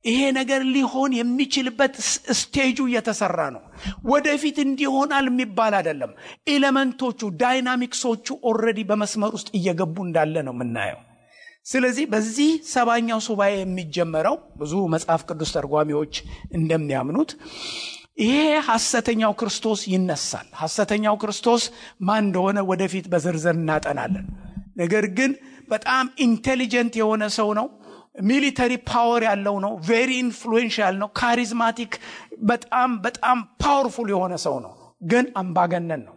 ይሄ ነገር ሊሆን የሚችልበት ስቴጁ እየተሰራ ነው። ወደፊት እንዲሆናል የሚባል አይደለም። ኤሌመንቶቹ ዳይናሚክሶቹ ኦልሬዲ በመስመር ውስጥ እየገቡ እንዳለ ነው የምናየው። ስለዚህ በዚህ ሰባኛው ሱባኤ የሚጀመረው ብዙ መጽሐፍ ቅዱስ ተርጓሚዎች እንደሚያምኑት ይሄ ሐሰተኛው ክርስቶስ ይነሳል። ሐሰተኛው ክርስቶስ ማን እንደሆነ ወደፊት በዝርዝር እናጠናለን። ነገር ግን በጣም ኢንቴሊጀንት የሆነ ሰው ነው። ሚሊተሪ ፓወር ያለው ነው። ቬሪ ኢንፍሉዌንሻል ነው። ካሪዝማቲክ በጣም በጣም ፓወርፉል የሆነ ሰው ነው። ግን አምባገነን ነው።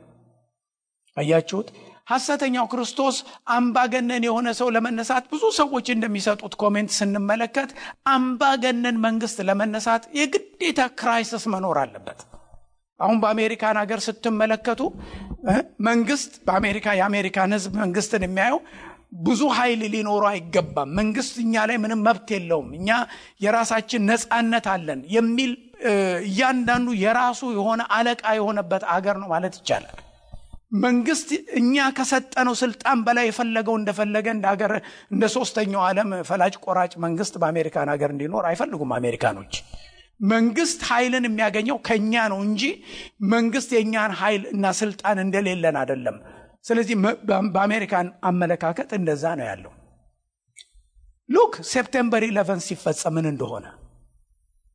አያችሁት? ሐሰተኛው ክርስቶስ አምባገነን የሆነ ሰው ለመነሳት ብዙ ሰዎች እንደሚሰጡት ኮሜንት ስንመለከት አምባገነን መንግስት ለመነሳት የግዴታ ክራይሲስ መኖር አለበት። አሁን በአሜሪካን ሀገር ስትመለከቱ መንግስት የአሜሪካን ህዝብ መንግስትን የሚያየው ብዙ ኃይል ሊኖረው አይገባም፣ መንግስት እኛ ላይ ምንም መብት የለውም፣ እኛ የራሳችን ነፃነት አለን የሚል እያንዳንዱ የራሱ የሆነ አለቃ የሆነበት አገር ነው ማለት ይቻላል። መንግስት እኛ ከሰጠነው ስልጣን በላይ የፈለገው እንደፈለገ እንደሀገር እንደ ሶስተኛው ዓለም ፈላጭ ቆራጭ መንግስት በአሜሪካን ሀገር እንዲኖር አይፈልጉም አሜሪካኖች። መንግስት ኃይልን የሚያገኘው ከኛ ነው እንጂ መንግስት የኛን ኃይል እና ስልጣን እንደሌለን አይደለም። ስለዚህ በአሜሪካን አመለካከት እንደዛ ነው ያለው። ሉክ ሴፕቴምበር 11 ሲፈጸም ምን እንደሆነ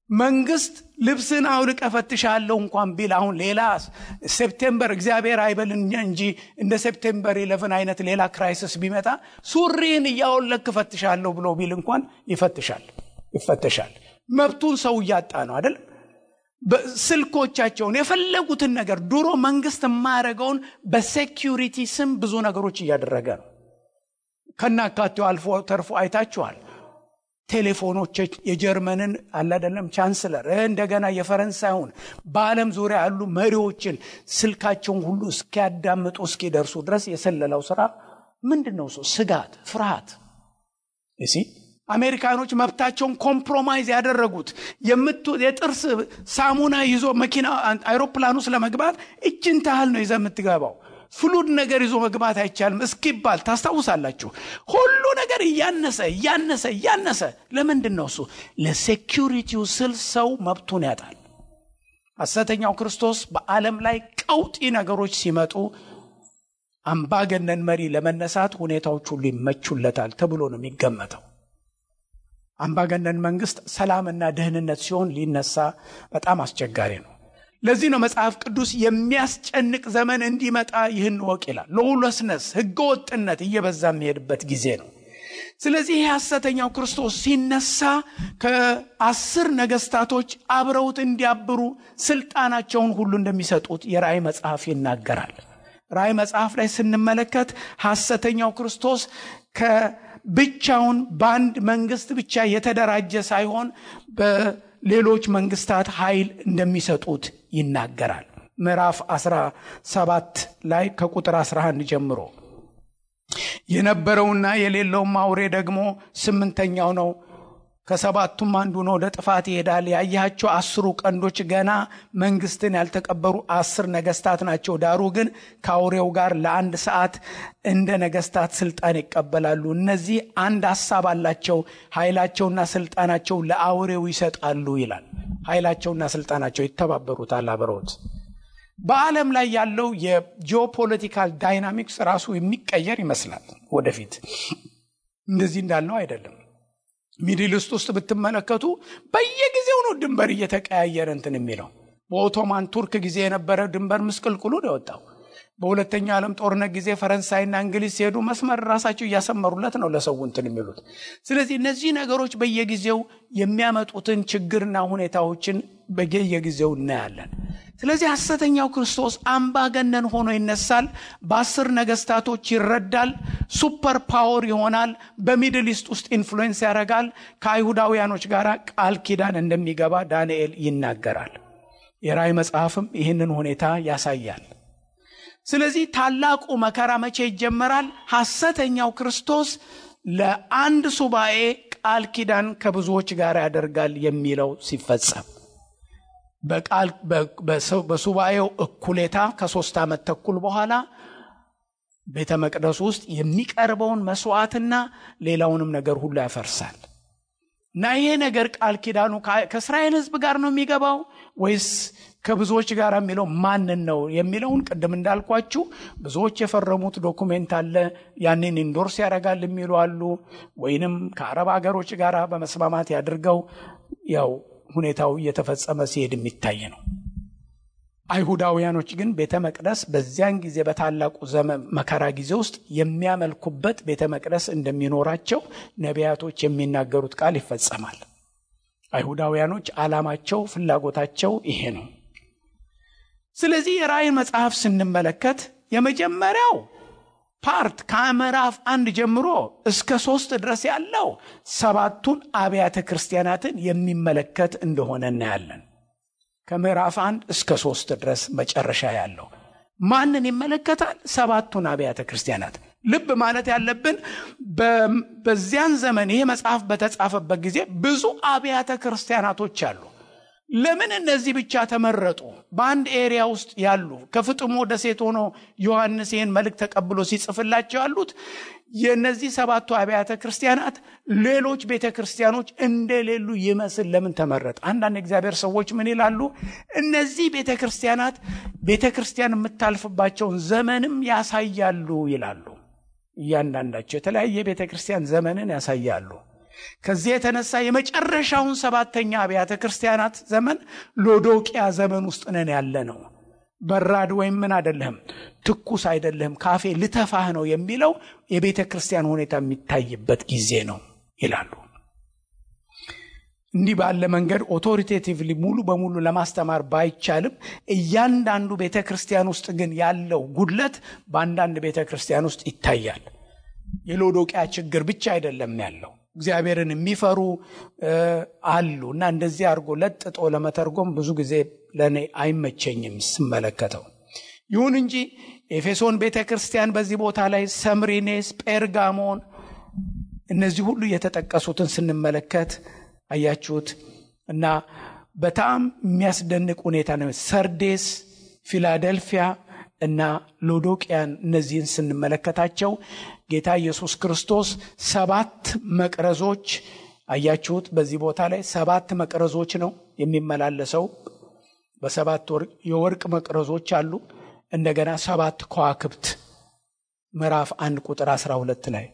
መንግስት ልብስን አውልቀ ፈትሻለሁ እንኳን ቢል አሁን ሌላ ሴፕቴምበር እግዚአብሔር አይበልኛ እንጂ እንደ ሴፕቴምበር 11 አይነት ሌላ ክራይሲስ ቢመጣ ሱሪን ያወለክ ፈትሻለሁ ብሎ ቢል እንኳን ይፈተሻል። መብቱን ሰው ያጣ ነው አይደል? በስልኮቻቸውን የፈለጉትን ነገር ድሮ መንግስት ማረጋውን በሴኩሪቲ ስም ብዙ ነገሮች እያደረገ ነው። ከናካቴው አልፎ ተርፎ አይታችኋል። ቴሌፎኖች የጀርመንን አይደለም ቻንስለር እንደገና የፈረንሳዩን በአለም ዙሪያ ያሉ መሪዎችን ስልካቸውን ሁሉ እስኪያዳምጡ እስኪደርሱ ድረስ የሰለላው ስራ ምንድነው? ስጋት፣ ፍርሃት። እሺ አሜሪካኖች መብታቸውን ኮምፕሮማይዝ ያደረጉት የጥርስ ሳሙና ይዞ መኪና አይሮፕላን ውስጥ ለመግባት እችን ታህል ነው ይዘህ የምትገባው። ፍሉድ ነገር ይዞ መግባት አይቻልም እስኪባል ታስታውሳላችሁ። ሁሉ ነገር እያነሰ ለምንድን ነው እሱ? ለሴኩሪቲው ስል ሰው መብቱን ያጣል። ሐሰተኛው ክርስቶስ በዓለም ላይ ቀውጢ ነገሮች ሲመጡ አምባገነን መሪ ለመነሳት ሁኔታዎች ሁሉ ይመቹለታል ተብሎ ነው የሚገመተው። አምባገነን መንግስት ሰላምና ደህንነት ሲሆን ሊነሳ በጣም አስቸጋሪ ነው። ለዚህ ነው መጽሐፍ ቅዱስ የሚያስጨንቅ ዘመን እንዲመጣ ይህን ወቅ ይላል። ሎውለስነስ ህገወጥነት እየበዛ የሚሄድበት ጊዜ ነው። ስለዚህ ሐሰተኛው ክርስቶስ ሲነሳ ከ10 ነገስታቶች አብረውት እንዲያብሩ ስልጣናቸውን ሁሉ እንደሚሰጡት የራእይ መጽሐፍ ይናገራል። ራእይ መጽሐፍ ላይ ስንመለከት ሐሰተኛው ክርስቶስ ብቻውን በአንድ መንግስት ብቻ የተደራጀ ሳይሆን በሌሎች መንግስታት ኃይል እንደሚሰጡት ይናገራል። ምዕራፍ 17 ላይ ከቁጥር 11 ጀምሮ የነበረውና የሌለውም አውሬ ደግሞ 8ኛው ነው፣ ከሰባቱም አንዱ ነው፣ ወደ ጥፋት ይሄዳል። ያያቸው 10 ቀንዶች ገና መንግስትን ያልተቀበሩ 10 ነገስታት ናቸው። ዳሩ ግን ከአውሬው ጋር ለ1 ሰዓት እንደ ነገስታት ስልጣን ይቀበላሉ። እነዚህ አንድ ሐሳብ አላቸው፣ ኃይላቸውና ስልጣናቸው ለአውሬው ይሰጣሉ ይላል። ኃይላቸውና ስልጣናቸው ይተባበሩታል አብረውት። በዓለም ላይ ያለው የጂኦፖለቲካል ዳይናሚክስ ራሱ የሚቀየር ይመስላል። ወደፊት እንደዚህ እንዳለው አይደለም። ሚድል ኢስት ውስጥ ብትመለከቱ በየጊዜው ነው ድንበር እየተቀያየረ እንትን የሚለው። በኦቶማን ቱርክ ጊዜ የነበረ ድንበር ምስቅልቅሉ ነው የወጣው። በሁለተኛው ዓለም ጦርነት ጊዜ ፈረንሳይና እንግሊዝ ሲሄዱ መስመር ራሳቸው እያሰመሩለት ነው ለሰው እንትን የሚሉት። ስለዚህ እነዚህ ነገሮች በየጊዜው የሚያመጡትን ችግርና ሁኔታዎችን በየጊዜው እናያለን። ስለዚህ ሐሰተኛው ክርስቶስ አምባገነን ሆኖ ይነሳል። በ10 ነገስታቶች ይረዳል። ሱፐር ፓወር ይሆናል። በሚድል ኢስት ውስጥ ኢንፍሉዌንስ ያደርጋል። ከአይሁዳውያኖች ጋር ቃል ኪዳን እንደሚገባ ዳንኤል ይናገራል። የራእይ መጽሐፍም ይህንን ሁኔታ ያሳያል። ስለዚህ ታላቁ መከራ መቼ ይጀመራል? ሐሰተኛው ክርስቶስ ለአንድ ሱባኤ ቃል ኪዳን ከብዙዎች ጋር ያደርጋል የሚለው ሲፈጸም በሱባኤው እኩሌታ ከ3 ዓመት ተኩል በኋላ ቤተ መቅደስ ውስጥ የሚቀርበውን መስዋዕትና ሌላውንም ነገር ሁሉ ያፈርሳል። እና ይሄ ነገር ቃል ኪዳኑ ከእስራኤል ሕዝብ ጋር ነው የሚገባው ወይስ ከብዙዎች ጋር የሚለው ማንን ነው የሚለውን ቅድም እንዳልኳችሁ ብዙዎች የፈረሙት ዶኩሜንት አለ። ያንን ኢንዶርስ ያደርጋል የሚሉ አሉ። ወይንም ከአረብ ሀገሮች ጋር በመስማማት ያድርገው ያው ሁኔታው እየተፈጸመ ሲሄድ የሚታይ ነው። አይሁዳውያኖች ግን ቤተ መቅደስ በዚያን ጊዜ በታላቁ ዘመን መከራ ጊዜ ውስጥ የሚያመልኩበት ቤተ መቅደስ እንደሚኖራቸው ነቢያቶች የሚናገሩት ቃል ይፈጸማል። አይሁዳውያኖች ዓላማቸው ፍላጎታቸው ይሄ ነው። ስለዚህ የራእይ መጽሐፍ ስንመለከት የመጀመሪያው ፓርት ከምዕራፍ 1 ጀምሮ እስከ 3 ድረስ ያለው 7ቱን አብያተ ክርስቲያናትን የሚመለከት እንደሆነ እናያለን። ከምዕራፍ 1 እስከ 3 ድረስ መጨረሻ ያለው ማንን ይመለከታል? 7ቱን አብያተ ክርስቲያናት። ልብ ማለት ያለብን በዚያን ዘመን ይሄ መጽሐፍ በተጻፈበት ጊዜ ብዙ አብያተ ክርስቲያናቶች አሉ። ለምን እነዚህ ብቻ ተመረጡ? በአንድ ኤሪያ ውስጥ ያሉ ከፍጥሞ ደሴት ሆኖ ዮሐንስ ይህን መልእክት ተቀብሎ ሲጽፍላቸው ያሉት የነዚህ 7ቱ አብያተ ክርስቲያናት ሌሎች ቤተክርስቲያኖች እንደሌሉ ይመስል ለምን ተመረጠ? አንዳንድ እግዚአብሔር ሰዎች ምን ይላሉ? እነዚህ ቤተክርስቲያናት ቤተክርስቲያን የምታልፍባቸውን ዘመንም ያሳያሉ ይላሉ። እያንዳንዳቸው የተለያየ ቤተክርስቲያን ዘመንን ያሳያሉ። ከዚህ የተነሳ የመጨረሻውን 7ኛ አብያተ ክርስቲያናት ዘመን ሎዶቅያ ዘመን ውስጥ ነን ያለነው። በራድ ወይም ምን አይደለም፣ ትኩስ አይደለም፣ ካፌ ልተፋህ ነው የሚለው የቤተ ክርስቲያን ሁኔታ የሚታይበት ጊዜ ነው ይላሉ። እንዲህ ባለ መንገድ ኦቶሪቴቲቭሊ ሙሉ በሙሉ ለማስተማር ባይቻልም እያንዳንዱ ቤተ ክርስቲያን ውስጥ ግን ያለው ጉድለት በአንዳንድ ቤተ ክርስቲያን ውስጥ ይታያል። የሎዶቅያ ችግር ብቻ አይደለም ያለው፣ እግዚአብሔርን የሚፈሩ አሉ። እና እንደዚህ አድርጎ ለጥጦ ለመተርጎም ብዙ ጊዜ ለኔ አይመቸኝም ስመለከተው። ይሁን እንጂ ኤፌሶን ቤተክርስቲያን በዚህ ቦታ ላይ ሰምሪኔስ፣ ጴርጋሞን እነዚህ ሁሉ የተጠቀሱትን ስንመለከት አያችሁት። እና በጣም የሚያስደንቅ ሁኔታ ነው። ሰርዴስ፣ ፊላደልፊያ እና ሎዶቅያን እነዚህን ስንመለከታቸው ጌታ ኢየሱስ ክርስቶስ 7 መቅረዞች አያችሁት። በዚህ ቦታ ላይ 7 መቅረዞች ነው የሚመላለሰው። በ7 የወርቅ መቅረዞች አሉ። እንደገና 7 ከዋክብት ምዕራፍ 1 ቁጥር 12 ላይ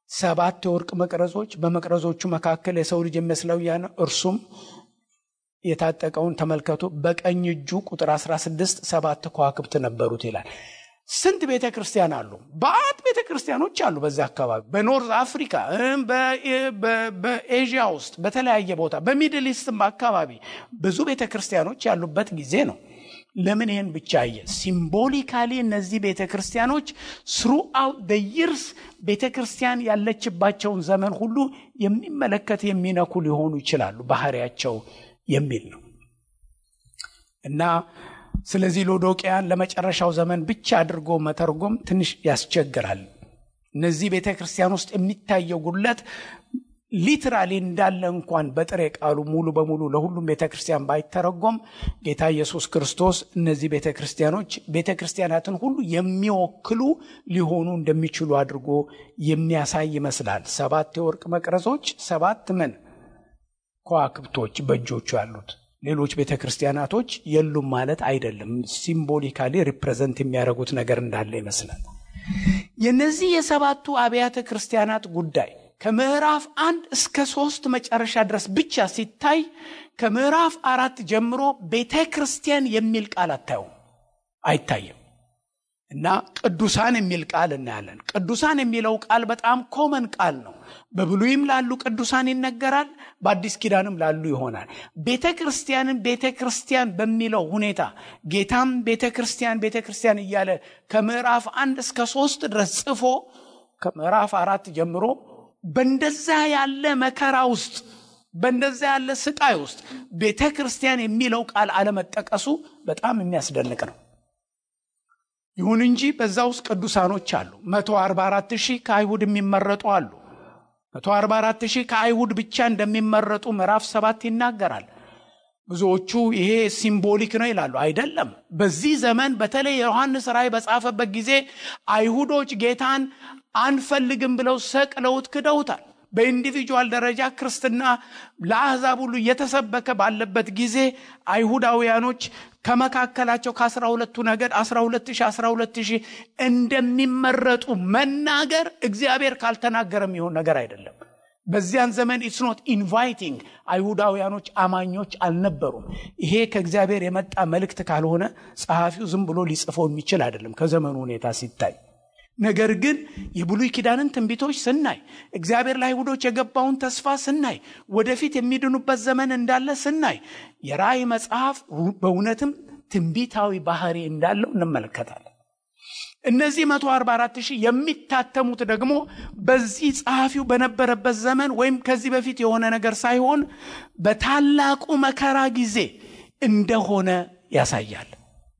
7 የወርቅ መቅረዞች፣ በመቅረዞቹ መካከል የሰው ልጅ የሚመስለው ያን እርሱም የታጠቀውን ተመልከቱ። በቀኝ እጁ ቁጥር 16 7 ከዋክብት ነበሩት ይላል። ስንት ቤተክርስቲያን አሉ? በአት ቤተክርስቲያኖች አሉ በዛ አካባቢ፣ በኖርዝ አፍሪካ፣ በኤዥያ ውስጥ፣ በተለያየ ቦታ፣ በሚድል ኢስትም አካባቢ ብዙ ቤተክርስቲያኖች ያሉበት ጊዜ ነው። ለምን ይሄን ብቻ አየ? ሲምቦሊካሊ እነዚህ ቤተክርስቲያኖች throughout the years ቤተክርስቲያን ያለችባቸውን ዘመን ሁሉ የሚመለከት የሚነኩ ሊሆኑ ይችላሉ ባህሪያቸው የሚል ነው። እና ስለዚህ ሎዶቅያን ለመጨረሻው ዘመን ብቻ አድርጎ መተርጎም ትንሽ ያስቸግራል። እነዚህ ቤተክርስቲያን ውስጥ የሚታየው ጉድለት ሊትራሊ እንዳለ እንኳን በጥሬ ቃሉ ሙሉ በሙሉ ለሁሉም ቤተክርስቲያን ባይተረጎም ጌታ ኢየሱስ ክርስቶስ እነዚህ ቤተክርስቲያኖች ቤተክርስቲያናትን ሁሉ የሚወክሉ ሊሆኑ እንደሚችሉ አድርጎ የሚያሳይ ይመስላል። 7 የወርቅ መቅረዞች፣ 7 ምን ከዋክብቶች በእጆቹ ያሉት። ሌሎች ቤተክርስቲያናቶች የሉም ማለት አይደለም። ሲምቦሊካሊ ሪፕሬዘንት የሚያደርጉት ነገር እንዳለ ይመስላል። የነዚህ የሰባቱ አብያተ ክርስቲያናት ጉዳይ ከምዕራፍ 1 እስከ 3 መጨረሻ ድረስ ብቻ ሲታይ ከምዕራፍ 4 ጀምሮ ቤተክርስቲያን የሚል ቃል አይታይም። እና ቅዱሳን የሚል ቃል እናያለን። ቅዱሳን የሚለው ቃል በጣም ኮመን ቃል ነው። በብሉይም ላሉ ቅዱሳን ይነገራል፣ በአዲስ ኪዳንም ላሉ ይሆናል። ቤተክርስቲያንን ቤተክርስቲያን በሚለው ሁኔታ ጌታም ቤተክርስቲያን እያለ ከምዕራፍ 1 እስከ 3 ድረስ ጽፎ ከምዕራፍ 4 ጀምሮ በእንደዛ ያለ መከራ ውስጥ በእንደዛ ያለ ስቃይ ውስጥ ቤተክርስቲያን የሚለው ቃል አለመጠቀሱ በጣም የሚያስደንቅ ነው። ይሁን እንጂ በዛ ውስጥ ቅዱሳኖች አሉ። 144,000 ከአይሁድ የሚመረጡ አሉ። 144,000 ከአይሁድ ብቻ እንደሚመረጡ ምዕራፍ 7 ይናገራል። ብዙዎቹ ይሄ ሲምቦሊክ ነው ይላሉ። አይደለም። በዚህ ዘመን በተለይ ዮሐንስ ራእይ በጻፈበት ጊዜ አይሁዶች ጌታን አንፈልግም ብለው ሰቅለውት ክደውታል። በኢንዲቪጁዋል ደረጃ ክርስትና ለአሕዛብ ሁሉ እየተሰበከ ባለበት ጊዜ አይሁዳውያኖች ከመካከላቸው ከ12ቱ ነገድ 12,000 እንደሚመረጡ መናገር እግዚአብሔር ካልተናገረም ይሆን ነገር አይደለም። በዚያን ዘመን it's not inviting አይሁዳውያኖች አማኞች አልነበሩም። ይሄ ከእግዚአብሔር የመጣ መልእክት ካልሆነ ጸሐፊው ዝም ብሎ ሊጽፈው የሚችል አይደለም ከዘመኑ ሁኔታ ሲታይ። ነገር ግን የብሉይ ኪዳንን ትንቢቶች ስናይ እግዚአብሔር ለአይሁዶች የገባውን ተስፋ ስናይ ወደፊት የሚድኑበት ዘመን እንዳለ ስናይ የራእይ መጽሐፍ በእውነትም ትንቢታዊ ባህሪ እንዳለው እንመለከታለን። እነዚህ 144,000 የሚታተሙት ደግሞ በዚህ ጸሐፊው በነበረበት ዘመን ወይም ከዚህ በፊት የሆነ ነገር ሳይሆን በታላቁ መከራ ጊዜ እንደሆነ ያሳያል።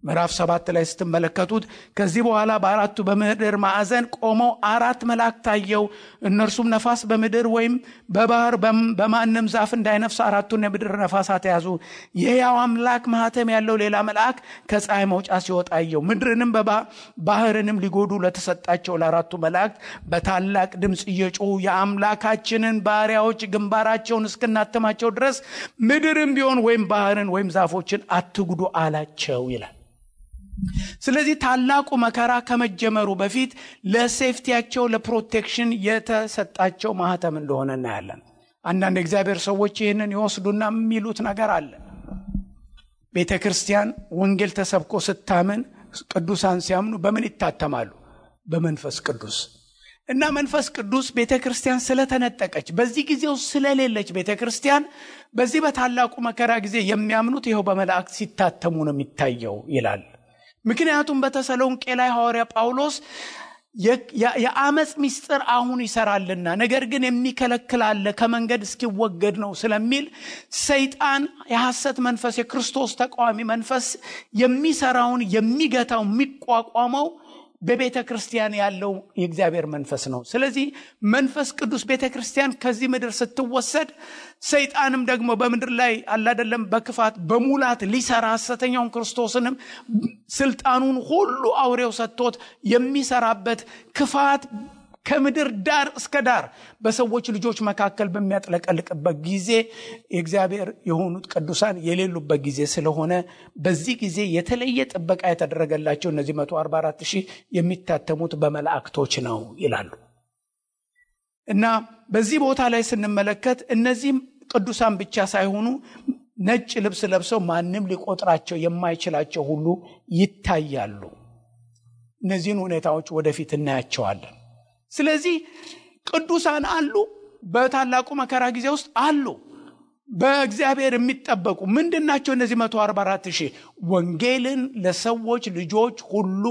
ምዕራፍ 7 ላይ ስትመለከቱት ከዚህ በኋላ በአራቱ በምድር ማዕዘን ቆመው 4 መላእክት ታየው። እነርሱም ነፋስ በምድር ወይም በባህር በማንም ዛፍ እንዳይነፍስ 4ቱን የምድር ነፋሳት ያዙ። የሕያው አምላክ ማህተም ያለው ሌላ መልአክ ከፀሐይ መውጫ ሲወጣ አየሁ። ምድርንም ባህርንም ሊጎዱ ለተሰጣቸው ለአራቱ መላእክት በታላቅ ድምፅ እየጮሁ የአምላካችንን ባሪያዎች ግንባራቸውን እስክናተማቸው ድረስ ምድርም ቢሆን ወይም ባህርን ወይም ዛፎችን አትጉዱ አላቸው ይላል። ስለዚህ ታላቁ መከራ ከመጀመሩ በፊት ለሴፍቲያቸው ለፕሮቴክሽን የተሰጣቸው ማህተም እንደሆነ እናያለን። አንዳንድ እግዚአብሔር ሰዎች ይህንን ይወስዱና የሚሉት ነገር አለ። ቤተክርስቲያን ወንጌል ተሰብኮ ስታምን ቅዱሳን ሲያምኑ በምን ይታተማሉ? በመንፈስ ቅዱስ። እና መንፈስ ቅዱስ ቤተክርስቲያን ስለተነጠቀች በዚህ ጊዜው ስለሌለች ቤተክርስቲያን በዚህ በታላቁ መከራ ጊዜ የሚያምኑት ይኸው በመላእክት ሲታተሙ ነው የሚታየው ይላል። ምክንያቱም በተሰሎንቄ ላይ ሐዋርያ ጳውሎስ የአመጽ ምስጢር አሁን ይሰራልና ነገር ግን የሚከለክል አለ ከመንገድ እስኪወገድ ነው ስለሚል ሰይጣን የሐሰት መንፈስ የክርስቶስ ተቃዋሚ መንፈስ የሚሰራውን የሚገታው የሚቋቋመው በቤተክርስቲያን ያለው የእግዚአብሔር መንፈስ ነው። ስለዚህ መንፈስ ቅዱስ ቤተክርስቲያን ከዚህ ምድር ስትወሰድ ሰይጣንም ደግሞ በምድር ላይ አላደለም በክፋት በሙላት ሊሰራ ሐሰተኛውን ክርስቶስንም ስልጣኑን ሁሉ አውሬው ሰጥቶት የሚሰራበት ክፋት ከምድር ዳር እስከ ዳር በሰዎች ልጆች መካከል በሚያጥለቀልቅበት ጊዜ የእግዚአብሔር የሆኑት ቅዱሳን የሌሉበት ጊዜ ስለሆነ በዚህ ጊዜ የተለየ ጥበቃ የተደረገላቸው እነዚህ 144,000 የሚታተሙት በመላእክቶች ነው ይላሉ። እና በዚህ ቦታ ላይ ስንመለከት እነዚህም ቅዱሳን ብቻ ሳይሆኑ ነጭ ልብስ ለብሰው ማንም ሊቆጥራቸው የማይችላቸው ሁሉ ይታያሉ። እነዚህን ሁኔታዎች ወደፊት እናያቸዋለን። ስለዚህ ቅዱሳን አሉ፣ በታላቁ መከራ ጊዜ ውስጥ አሉ፣ በእግዚአብሔር የሚጠበቁ ምንድናቸው? እነዚህ 144,000 ወንጌልን ለሰዎች ልጆች ሁሉ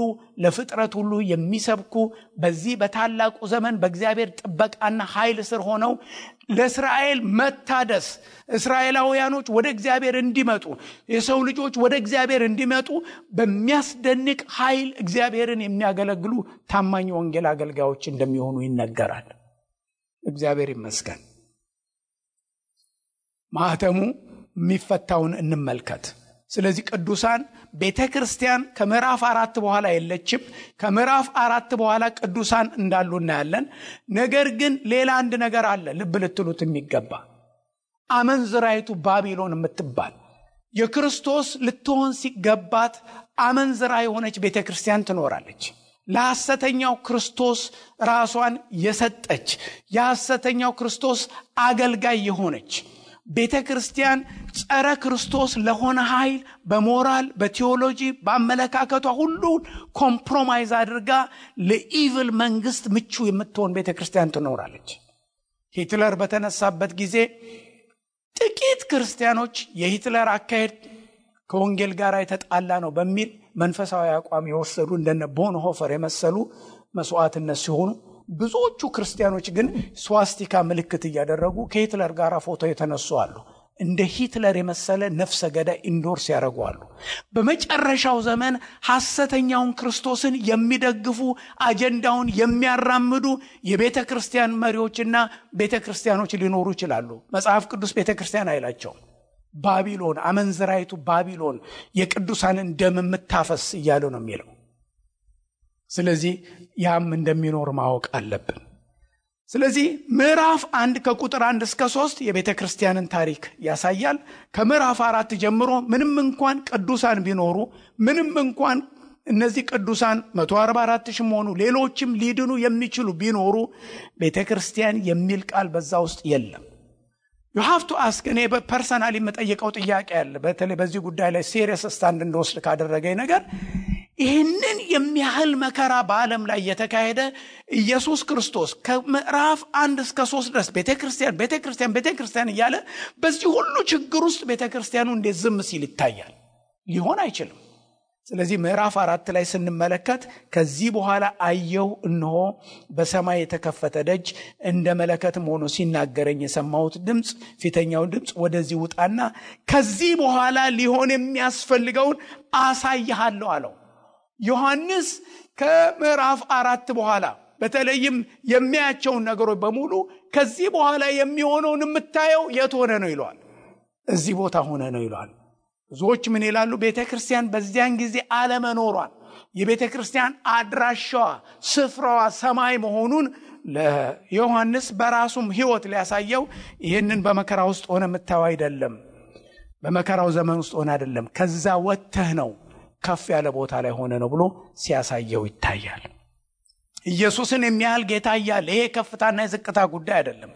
ለፍጥረት ሁሉ የሚሰብኩ በዚህ በታላቁ ዘመን በእግዚአብሔር ጥበቃና ኃይል ስር ሆነው ለእስራኤል መታደስ እስራኤላውያኖች ወደ እግዚአብሔር እንዲመጡ የሰው ልጆች ወደ እግዚአብሔር እንዲመጡ በሚያስደንቅ ኃይል እግዚአብሔርን የሚያገለግሉ ታማኝ ወንጌል አገልጋዮች እንደሚሆኑ ይነገራል። እግዚአብሔር ይመስገን። ማህተሙ የሚፈታውን እንመልከት። ስለዚህ ቅዱሳን ቤተክርስቲያን ከምዕራፍ 4 በኋላ የለችም። ከምዕራፍ 4 በኋላ ቅዱሳን እንዳሉ እናያለን። ነገር ግን ሌላ አንድ ነገር አለ ልብ ልትሉት የሚገባ። አመንዝራይቱ ባቢሎን የምትባል የክርስቶስ ልትሆን ሲገባት አመንዝራ የሆነች ቤተክርስቲያን ትኖራለች። ለሐሰተኛው ክርስቶስ ራሷን የሰጠች የሐሰተኛው ክርስቶስ አገልጋይ የሆነች ቤተክርስቲያን ጸረ ክርስቶስ ለሆነ ኃይል በሞራል በቴዎሎጂ በአመለካከቷ ሁሉ ኮምፕሮማይዝ አድርጋ ለኢቪል መንግስት ምቹ የምትሆን ቤተክርስቲያን ትኖራለች። ሂትለር በተነሳበት ጊዜ ጥቂት ክርስቲያኖች የሂትለር አካሄድ ከወንጌል ጋር የተጣላ ነው በሚል መንፈሳዊ አቋም የወሰዱ እንደነ ቦንሆፈር የመሰሉ መስዋዕትነት ሲሆኑ፣ ብዙዎቹ ክርስቲያኖች ግን ስዋስቲካ ምልክት እያደረጉ ከሂትለር ጋር ፎቶ የተነሱ አሉ። እንደ ሂትለር የመሰለ ነፍሰ ገዳይ ኢንዶርስ ያደርጋሉ። በመጨረሻው ዘመን ሐሰተኛውን ክርስቶስን የሚደግፉ አጀንዳውን የሚያራምዱ የቤተክርስቲያን መሪዎችና ቤተክርስቲያኖች ሊኖሩ ይችላሉ። መጽሐፍ ቅዱስ ቤተክርስቲያን አይላቸውም። ባቢሎን፣ አመንዝራይቱ ባቢሎን የቅዱሳንን ደም የምታፈስ እያለ ነው የሚለው። ስለዚህ ያም እንደሚኖር ማወቅ አለብን። ስለዚህ ምዕራፍ 1 ከቁጥር 1 እስከ 3 የቤተክርስቲያንን ታሪክ ያሳያል። ከምዕራፍ 4 ጀምሮ ምንም እንኳን ቅዱሳን ቢኖሩ፣ ምንም እንኳን እነዚህ ቅዱሳን 144,000 ሆኑ ሌሎችም ሊድኑ የሚችሉ ቢኖሩ ቤተክርስቲያን የሚል ቃል በዛ ውስጥ የለም። you have to ask እኔ በፐርሰናሊ መጠየቀው ጥያቄ አለ። በተለይ በዚህ ጉዳይ ላይ ሲሪየስ ስታንድ እንደወስድ ካደረገኝ ነገር ይህንን የሚያህል መከራ በዓለም ላይ የተካሄደ ኢየሱስ ክርስቶስ ከምዕራፍ 1 እስከ 3 ድረስ ቤተክርስቲያን እያለ በዚህ ሁሉ ችግር ውስጥ ቤተክርስቲያኑ እንዴት ዝም ሲል ይታያል? ሊሆን አይችልም። ስለዚህ ምዕራፍ 4 ላይ ስንመለከት ከዚህ በኋላ አየሁ፣ እነሆ በሰማይ የተከፈተ ደጅ እንደ መለከትም ሆኖ ሲናገረኝ የሰማሁት ድምፅ፣ ፊተኛውን ድምፅ ወደዚህ ውጣና ከዚህ በኋላ ሊሆን የሚያስፈልገውን አሳይሃለሁ አለው። ዮሐንስ ከምዕራፍ 4 በኋላ በተለይም የሚያያቸውን ነገሮች በሙሉ ከዚህ በኋላ የሚሆነውን የምታየው የት ሆነ ነው ይለዋል። እዚህ ቦታ ሆነ ነው ይለዋል። ብዙዎች ምን ይላሉ? ቤተክርስቲያን በዚያን ጊዜ አለመኖሯን፣ የቤተክርስቲያን አድራሻዋ ስፍራዋ ሰማይ መሆኑን ለዮሐንስ በራሱም ሕይወት ሊያሳየው ይህንን በመከራ ውስጥ ሆነ የምታየው አይደለም፣ በመከራው ዘመን ውስጥ ሆነ አይደለም፣ ከዛ ወጥተህ ነው ከፍ ያለ ቦታ ላይ ሆነ ነው ብሎ ሲያሳየው ይታያል። ኢየሱስን የሚያህል ጌታ እያለ ይሄ ከፍታና የዝቅታ ጉዳይ አይደለም።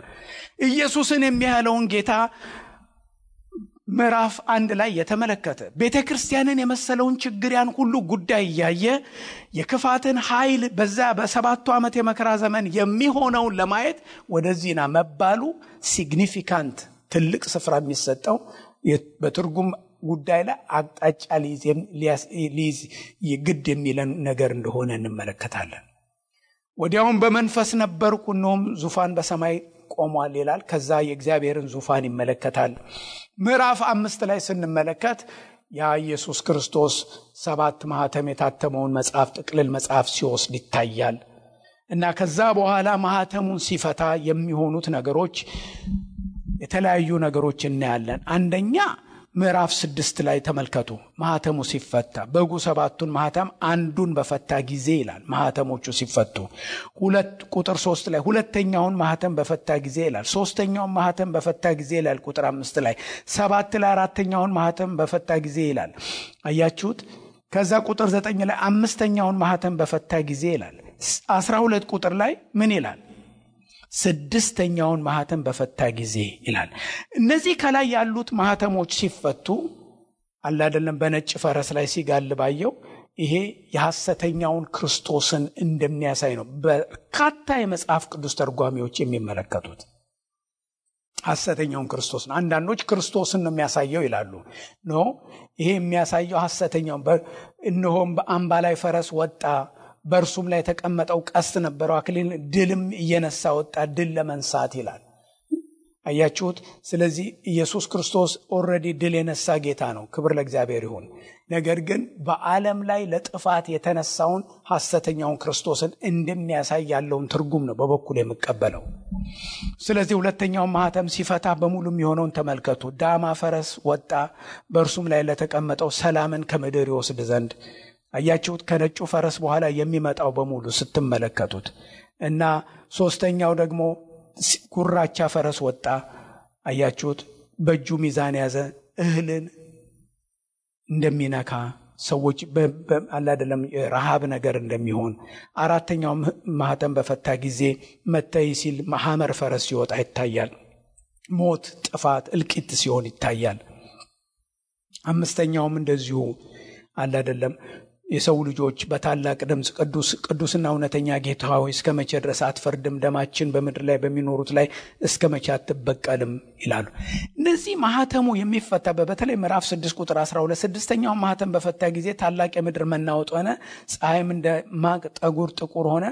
ኢየሱስን የሚያህለውን ጌታ ምዕራፍ 1 ላይ የተመለከተ ቤተክርስቲያንን የመሰለውን ችግር ያን ሁሉ ጉዳይ እያየ የክፋትን ኃይል በዛ በሰባቱ ዓመት የመከራ ዘመን የሚሆነውን ለማየት ወደዚህና መባሉ ሲግኒፊካንት ትልቅ ስፍራ የሚሰጠው በትርጉም ጉዳይ ላይ አቅጣጫ ሊይዝ ይግድ የሚለን ነገር እንደሆነ እንመለከታለን። ወዲያውም በመንፈስ ነበርኩ፣ እነሆም ዙፋን በሰማይ ቆሟል ይላል። ከዛ የእግዚአብሔርን ዙፋን ይመለከታል። ምዕራፍ 5 ላይ ስንመለከት ያ ኢየሱስ ክርስቶስ 7 ማህተም የታተመውን መጽሐፍ ጥቅልል መጽሐፍ ሲወስድ ይታያል እና ከዛ በኋላ ማህተሙን ሲፈታ የሚሆኑት ነገሮች የተለያዩ ነገሮች እናያለን። አንደኛ ምዕራፍ 6 ላይ ተመልከቱ። ማህተሙ ሲፈታ በጉ 7ቱን ማህተም አንዱን በፈታ ጊዜ ይላል። ማህተሞቹ ሲፈቱ ቁጥር 3 ላይ ሁለተኛውን ማህተም በፈታ ጊዜ ይላል። ሶስተኛውን ማህተም በፈታ ጊዜ ይላል ቁጥር 5 ላይ 7 ላይ አራተኛውን ማህተም በፈታ ጊዜ ይላል። አያችሁት? ከዛ ቁጥር 9 ላይ አምስተኛውን ማህተም በፈታ ጊዜ ይላል። 12 ቁጥር ላይ ምን ይላል? ስድስተኛውን ማህተም በፈታ ጊዜ ይላል። እነዚህ ከላይ ያሉት ማህተሞች ሲፈቱ አላደለም በነጭ ፈረስ ላይ ሲጋልባየው ይሄ የሐሰተኛውን ክርስቶስን እንደሚያሳይ ነው በርካታ የመጽሐፍ ቅዱስ ተርጓሚዎች የሚመለከቱት። ሐሰተኛውን ክርስቶስ ነው። አንዳንዶች ክርስቶስን ነው የሚያሳየው ይላሉ። ኖ ይሄ የሚያሳየው ሐሰተኛውን እነሆም በአምባ ላይ ፈረስ ወጣ፣ በእርሱም ላይ የተቀመጠው ቀስት ነበረው፣ አክሊል ድልም እየነሳ ወጣ፣ ድል ለመንሳት ይላል። አያችሁት? ስለዚህ ኢየሱስ ክርስቶስ ኦልሬዲ ድል የነሳ ጌታ ነው። ክብር ለእግዚአብሔር ይሁን። ነገር ግን በዓለም ላይ ለጥፋት የተነሳውን ሐሰተኛውን ክርስቶስን እንደሚያሳይ ያለውን ትርጉም ነው በበኩል የምቀበለው። ስለዚህ ሁለተኛውን ማህተም ሲፈታ በሙሉ የሚሆነውን ተመልከቱ። ዳማ ፈረስ ወጣ፣ በእርሱም ላይ ለተቀመጠው ሰላምን ከምድር ይወስድ ዘንድ። አያችሁት? ከነጩ ፈረስ በኋላ የሚመጣው በሙሉ ስትመለከቱት እና ሶስተኛው ደግሞ ጉራቻ ፈረስ ወጣ። አያችሁት? በእጁ ሚዛን ያዘ፣ እህልን እንደሚነካ ሰዎች አላደለም ረሃብ ነገር እንደሚሆን አራተኛው ማህተም በፈታ ጊዜ መታይ ሲል ሐመር ፈረስ ሲወጣ ይታያል። ሞት፣ ጥፋት፣ እልቂት ሲሆን ይታያል። አምስተኛውም እንደዚሁ አላደለም የሰው ልጆች በታላቅ ድምፅ ቅዱስና እውነተኛ ጌታ ሆይ እስከ መቼ ድረስ አትፈርድም? ደማችን በምድር ላይ በሚኖሩት ላይ እስከ መቼ አትበቀልም ይላሉ። እነዚህ ማህተሙ የሚፈታ በተለይ ምዕራፍ 6 ቁጥር 12 ስድስተኛው ማህተም በፈታ ጊዜ ታላቅ የምድር መናወጥ ሆነ፣ ፀሐይም እንደ ማቅ ጠጉር ጥቁር ሆነ፣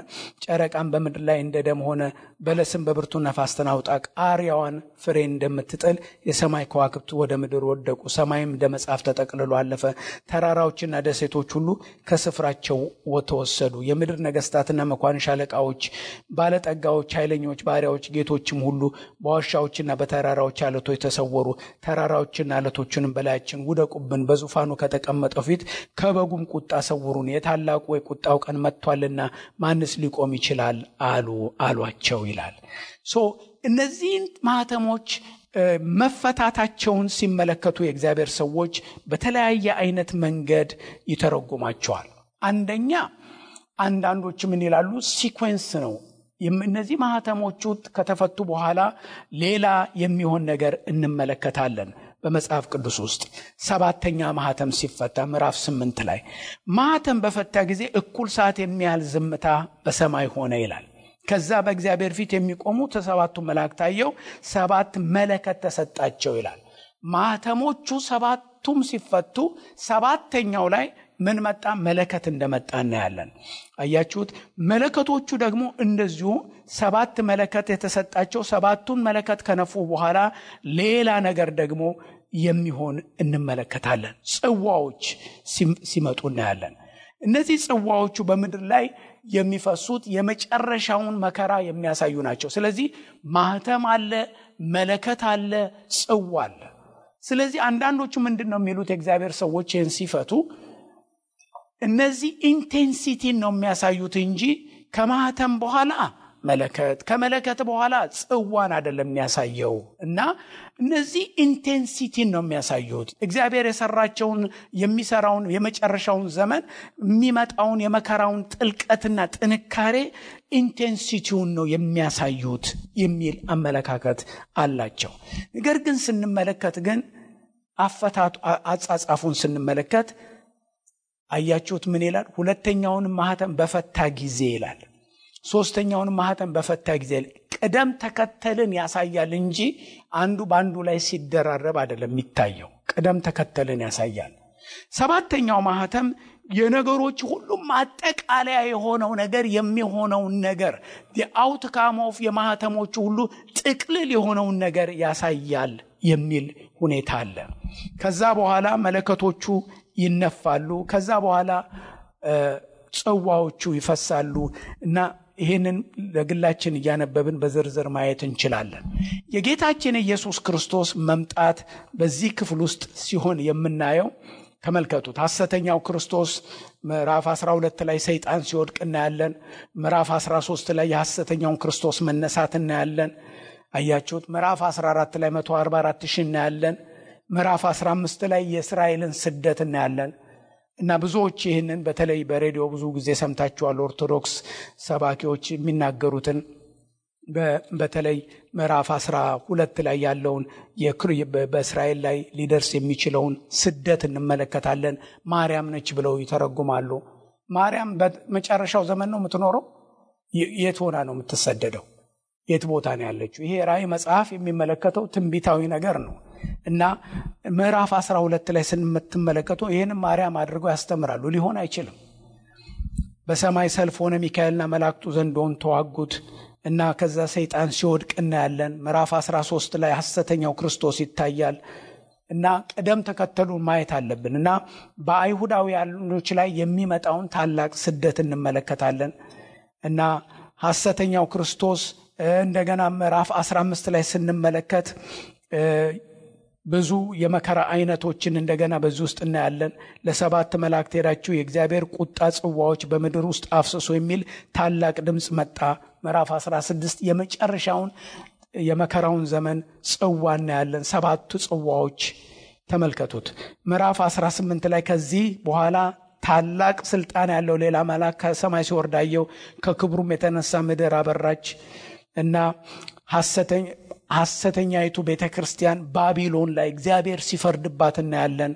ጨረቃም በምድር ላይ እንደ ደም ሆነ፣ በለስም በብርቱ ነፋስ ተናውጣ ቃሪያዋን ፍሬ እንደምትጥል የሰማይ ከዋክብት ወደ ምድር ወደቁ፣ ሰማይም እንደ መጽሐፍ ተጠቅልሎ አለፈ፣ ተራራዎችና ደሴቶች ሁሉ ከስፍራቸው ተወሰዱ፣ የምድር ነገስታትና መኳንንት አለቃዎች፣ ባለጠጋዎች፣ ኃይለኞች፣ ባሪያዎች፣ ጌቶችም ሁሉ በዋሻዎችና በተራራዎች አለቶች ተሰወሩ። ተራራዎችና አለቶችንም በላያችን ውደቁብን፣ በዙፋኑ ከተቀመጠው ፊት ከበጉም ቁጣ ሰውሩን፣ የታላቁ የቁጣው ቀን መጥቷልና ማንስ ሊቆም ይችላል አሏቸው ይላል። እነዚህን ማህተሞች መፈታታቸውን ሲመለከቱ የእግዚአብሔር ሰዎች በተለያየ አይነት መንገድ ይተረጉማቸዋል። አንደኛ አንዳንዶች ምን ይላሉ? ሲኩዌንስ ነው። እነዚህ ማህተሞቹ ከተፈቱ በኋላ ሌላ የሚሆን ነገር እንመለከታለን። በመጽሐፍ ቅዱስ ውስጥ ሰባተኛ ማህተም ሲፈታ ምዕራፍ 8 ላይ ማህተም በፈታ ጊዜ እኩል ሰዓት የሚያህል ዝምታ በሰማይ ሆነ ይላል። ከዛ በእግዚአብሔር ፊት የሚቆሙ ሰባቱ መላእክት አየሁ፣ 7 መለከት ተሰጣቸው ይላል። ማህተሞቹ ሰባቱም ሲፈቱ ሰባተኛው ላይ ምን መጣ? መለከት እንደመጣ እናያለን። አያችሁት? መለከቶቹ ደግሞ እንደዚሁ 7 መለከት የተሰጣቸው፣ 7ቱን መለከት ከነፉ በኋላ ሌላ ነገር ደግሞ የሚሆን እንመለከታለን። ጽዋዎች ሲመጡ እናያለን። እነዚህ ጽዋዎቹ በምድር ላይ የሚፈሱት የመጨረሻውን መከራ የሚያሳዩ ናቸው። ስለዚህ ማህተም አለ፣ መለከት አለ፣ ጽዋ አለ። ስለዚህ አንዳንዶቹ ምንድነው የሚሉት? የእግዚአብሔር ሰዎች ይህን ሲፈቱ እነዚህ ኢንቴንሲቲን ነው የሚያሳዩት እንጂ ከማህተም በኋላ መለከት ከመለከት በኋላ ጽዋን አይደለም የሚያሳየው። እና እነዚህ ኢንቴንሲቲን ነው የሚያሳዩት። እግዚአብሔር የሰራቸውን የሚሰራውን የመጨረሻውን ዘመን የሚመጣውን የመከራውን ጥልቀትና ጥንካሬ ኢንቴንሲቲውን ነው የሚያሳዩት የሚል አመለካከት አላቸው። ነገር ግን ስንመለከት ግን አጻጻፉን ስንመለከት አያችሁት ምን ይላል? ሁለተኛውን ማህተም በፈታ ጊዜ ይላል። ሶስተኛውን ማህተም በፈታ ጊዜ ቅደም ተከተልን ያሳያል እንጂ አንዱ ባንዱ ላይ ሲደራረብ አይደለም የሚታየው። ቅደም ተከተልን ያሳያል። ሰባተኛው ማህተም የነገሮች ሁሉ ማጠቃለያ የሆነው ነገር የሚሆነው ነገር የአውትካም ኦፍ የማህተሞቹ ሁሉ ጥቅልል የሆነው ነገር ያሳያል የሚል ሁኔታ አለ። ከዛ በኋላ መለከቶቹ ይነፋሉ። ከዛ በኋላ ጽዋዎቹ ይፈሳሉ እና ይሄንን ለግላችን እያነበብን በዝርዝር ማየት እንችላለን። የጌታችን ኢየሱስ ክርስቶስ መምጣት በዚህ ክፍል ውስጥ ሲሆን የምናየው ተመልከቱት። ሐሰተኛው ክርስቶስ ምዕራፍ 12 ላይ ሰይጣን ሲወድቅ እናያለን። ምዕራፍ 13 ላይ የሐሰተኛውን ክርስቶስ መነሳት እናያለን። አያችሁት? ምዕራፍ 14 ላይ 144,000 እናያለን። ምዕራፍ 15 ላይ የእስራኤልን ስደት እናያለን። እና ብዙዎች ይህንን በተለይ በሬዲዮ ብዙ ጊዜ ሰምታችኋል። ኦርቶዶክስ ሰባኪዎች የሚናገሩትን በተለይ ምዕራፍ 12 ላይ ያለውን በእስራኤል ላይ ሊደርስ የሚችለውን ስደት እንመለከታለን። ማርያም ነች ብለው ይተረጉማሉ። ማርያም በመጨረሻው ዘመን ነው የምትኖረው? የት ሆና ነው የምትሰደደው? የት ቦታ ነው ያለችው? ይሄ ራእይ መጽሐፍ የሚመለከተው ትንቢታዊ ነገር ነው። እና ምዕራፍ 12 ላይ ስንመለከቱ ይሄን ማርያም አድርገው ያስተምራሉ። ሊሆን አይችልም። በሰማይ ሰልፍ ሆነ፣ ሚካኤልና መላእክቱ ዘንዶን ተዋጉት እና ከዛ ሰይጣን ሲወድቅ እናያለን። ምዕራፍ 13 ላይ ሐሰተኛው ክርስቶስ ይታያል። እና ቀደም ተከተሉን ማየት አለብን። እና በአይሁዳውያኖች ላይ የሚመጣውን ታላቅ ስደት እንመለከታለን። እና ሐሰተኛው ክርስቶስ እንደገና ምዕራፍ 15 ላይ ስንመለከት ብዙ የመከራ አይነቶችን እንደገና በዚህ ውስጥ እናያለን። ለ7 መላእክት ሄዳችሁ የእግዚአብሔር ቁጣ ጽዋዎች በምድር ውስጥ አፍስሱ የሚል ታላቅ ድምጽ መጣ። ምዕራፍ 16 የመጨረሻውን የመከራውን ዘመን ጽዋ እናያለን። 7 ጽዋዎች ተመልከቱት ምዕራፍ 18 ላይ ከዚህ በኋላ ታላቅ ስልጣን ያለው ሌላ መልአክ ከሰማይ ሲወርድ አየሁ። ከክብሩም የተነሳ ምድር አበራች እና ሐሰተኛይቱ ቤተክርስቲያን ባቢሎን ላይ እግዚአብሔር ሲፈርድባት እናያለን።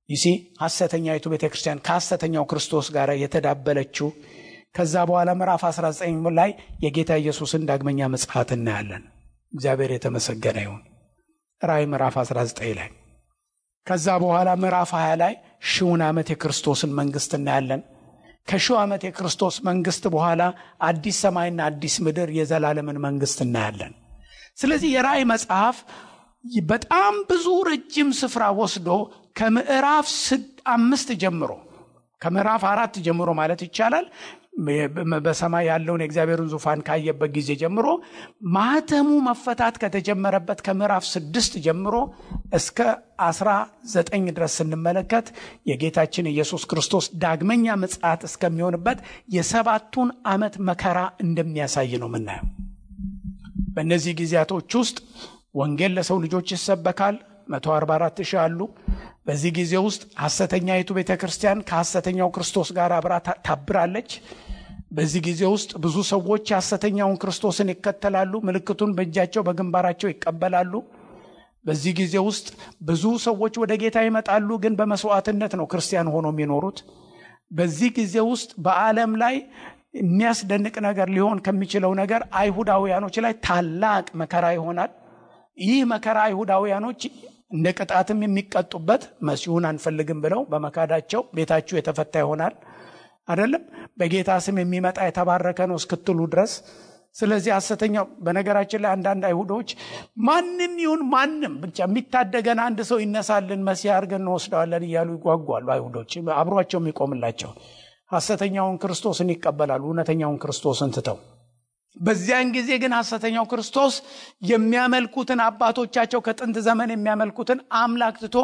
ይሲ ሐሰተኛይቱ ቤተክርስቲያን ከሐሰተኛው ክርስቶስ ጋር የተዳበለችው። ከዛ በኋላ ምዕራፍ 19 ላይ የጌታ ኢየሱስን ዳግመኛ ምጽአት እናያለን። እግዚአብሔር የተመሰገነ ይሁን። ራእይ ምዕራፍ 19 ላይ ከዛ በኋላ ምዕራፍ 20 ላይ ሺውን ዓመት የክርስቶስን መንግስት እናያለን። ከሺው ዓመት የክርስቶስ መንግስት በኋላ አዲስ ሰማይና አዲስ ምድር የዘላለምን መንግስት እናያለን። ስለዚህ የራእይ መጽሐፍ በጣም ብዙ ረጅም ስፍራ ወስዶ ከምዕራፍ 5 ጀምሮ ከምዕራፍ 4 ጀምሮ ማለት ይቻላል በሰማይ ያለውን የእግዚአብሔርን ዙፋን ካየበት ጊዜ ጀምሮ ማህተሙ መፈታት ከተጀመረበት ከምዕራፍ 6 ጀምሮ እስከ 19 ድረስ ስንመለከት የጌታችን ኢየሱስ ክርስቶስ ዳግመኛ ምጽአት እስከሚሆንበት የ7ቱን ዓመት መከራ እንደሚያሳይ ነው የምናየው። በእነዚህ ጊዜያቶች ውስጥ ወንጌል ለሰው ልጆች ይሰበካል። 144,000 አሉ። በዚህ ጊዜ ውስጥ ሐሰተኛይቱ ቤተክርስቲያን ከሐሰተኛው ክርስቶስ ጋር አብራ ታብራለች። በዚህ ጊዜ ውስጥ ብዙ ሰዎች ሐሰተኛውን ክርስቶስን ይከተላሉ፣ ምልክቱን በእጃቸው በግንባራቸው ይቀበላሉ። በዚህ ጊዜ ውስጥ ብዙ ሰዎች ወደ ጌታ ይመጣሉ፣ ግን በመስዋዕትነት ነው ክርስቲያን ሆኖ የሚኖሩት። በዚህ ጊዜ ውስጥ በዓለም ላይ የሚያስደንቅ ነገር ሊሆን ከሚችለው ነገር አይሁዳውያኖች ላይ ታላቅ መከራ ይሆናል። ይህ መከራ አይሁዳውያኖች እንደ ቅጣትም የሚቀጡበት መሲሁን አንፈልግም ብለው በመካዳቸው ቤታቸው የተፈታ ይሆናል አይደለም። በጌታ ስም የሚመጣ የተባረከ ነው እስክትሉ ድረስ። ስለዚህ ሐሰተኛው በነገራችን ላይ አንዳንድ አይሁዶች ማንም ይሁን ማንም ብቻ የሚታደገን አንድ ሰው ይነሳልን መሲህ አድርገን እንወስደዋለን እያሉ ይጓጓሉ። አይሁዶች አብሯቸው የሚቆምላቸው ሐሰተኛውን ክርስቶስን ይቀበላሉ እውነተኛውን ክርስቶስን ትተው። በዚያን ጊዜ ግን ሐሰተኛው ክርስቶስ የሚያመልኩትን አባቶቻቸው ከጥንት ዘመን የሚያመልኩትን አምላክ ትቶ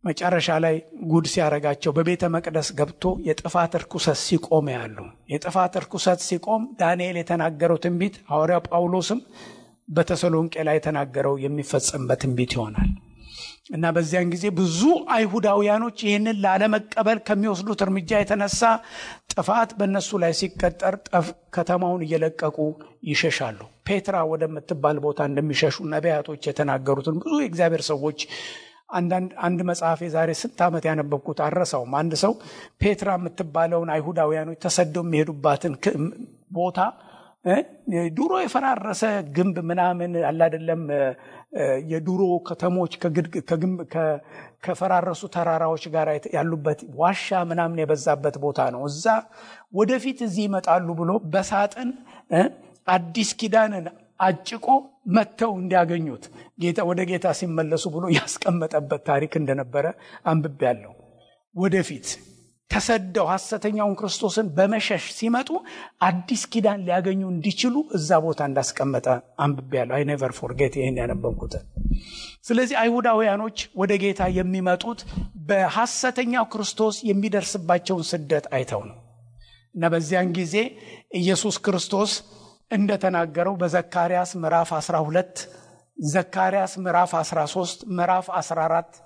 መጨረሻ ላይ ጉድ ሲያረጋቸው በቤተ መቅደስ ገብቶ የጥፋት ርኩሰት ሲቆም ያሉ። የጥፋት ርኩሰት ሲቆም ዳንኤል የተናገረው ትንቢት ሐዋርያው ጳውሎስም በተሰሎንቄ ላይ የተናገረው የሚፈጸምበት ትንቢት ይሆናል እና በዚያን ጊዜ ብዙ አይሁዳውያኖች ይህንን ላለመቀበል ከሚወስዱት እርምጃ የተነሳ ጥፋት በእነሱ ላይ ሲቀጠር ከተማውን እየለቀቁ ይሸሻሉ። ፔትራ ወደምትባል ቦታ እንደሚሸሹ ነቢያቶች የተናገሩትን ብዙ የእግዚአብሔር ሰዎች አንድ መጽሐፍ የዛሬ 6 ዓመት ያነበብኩት አረሳውም። አንድ ሰው ፔትራ የምትባለውን አይሁዳውያኖች ተሰደው የሚሄዱባትን ቦታ ድሮ የፈራረሰ ግንብ ምናምን አለ አይደለም የድሮ ከተሞች ከፈራረሱ ተራራዎች ጋር ያሉበት ዋሻ ምናምን የበዛበት ቦታ ነው። እዛ ወደፊት እዚህ ይመጣሉ ብሎ በሳጥን አዲስ ኪዳንን አጭቆ መተው እንዲያገኙት ወደ ጌታ ሲመለሱ ብሎ ያስቀመጠበት ታሪክ እንደነበረ አንብቤያለሁ። ወደፊት ተሰደው ሐሰተኛውን ክርስቶስን በመሸሽ ሲመጡ አዲስ ኪዳን ሊያገኙ እንዲችሉ እዛ ቦታ እንዳስቀመጠ አንብቤያለሁ። አይ ኔቨር ፎርጌት ይሄን ያነበብኩት። ስለዚህ አይሁዳውያኖች ወደ ጌታ የሚመጡት በሐሰተኛው ክርስቶስ የሚደርስባቸውን ስደት አይተው ነው እና በዚያን ጊዜ ኢየሱስ ክርስቶስ እንደተናገረው በዘካርያስ ምዕራፍ 12 ዘካርያስ ምዕራፍ 13 ምዕራፍ 14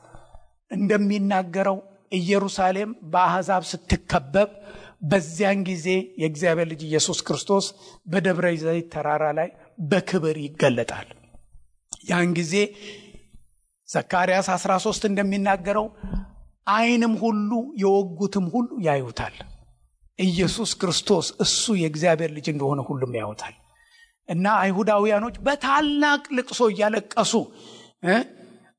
እንደሚናገረው ኢየሩሳሌም በአሕዛብ ስትከበብ በዚያን ጊዜ የእግዚአብሔር ልጅ ኢየሱስ ክርስቶስ በደብረ ዘይት ተራራ ላይ በክብር ይገለጣል። ያን ጊዜ ዘካርያስ 13 እንደሚናገረው ዓይንም ሁሉ የወጉትም ሁሉ ያዩታል። ኢየሱስ ክርስቶስ እሱ የእግዚአብሔር ልጅ እንደሆነ ሁሉም ያዩታል እና አይሁዳውያኖች በታላቅ ልቅሶ እያለቀሱ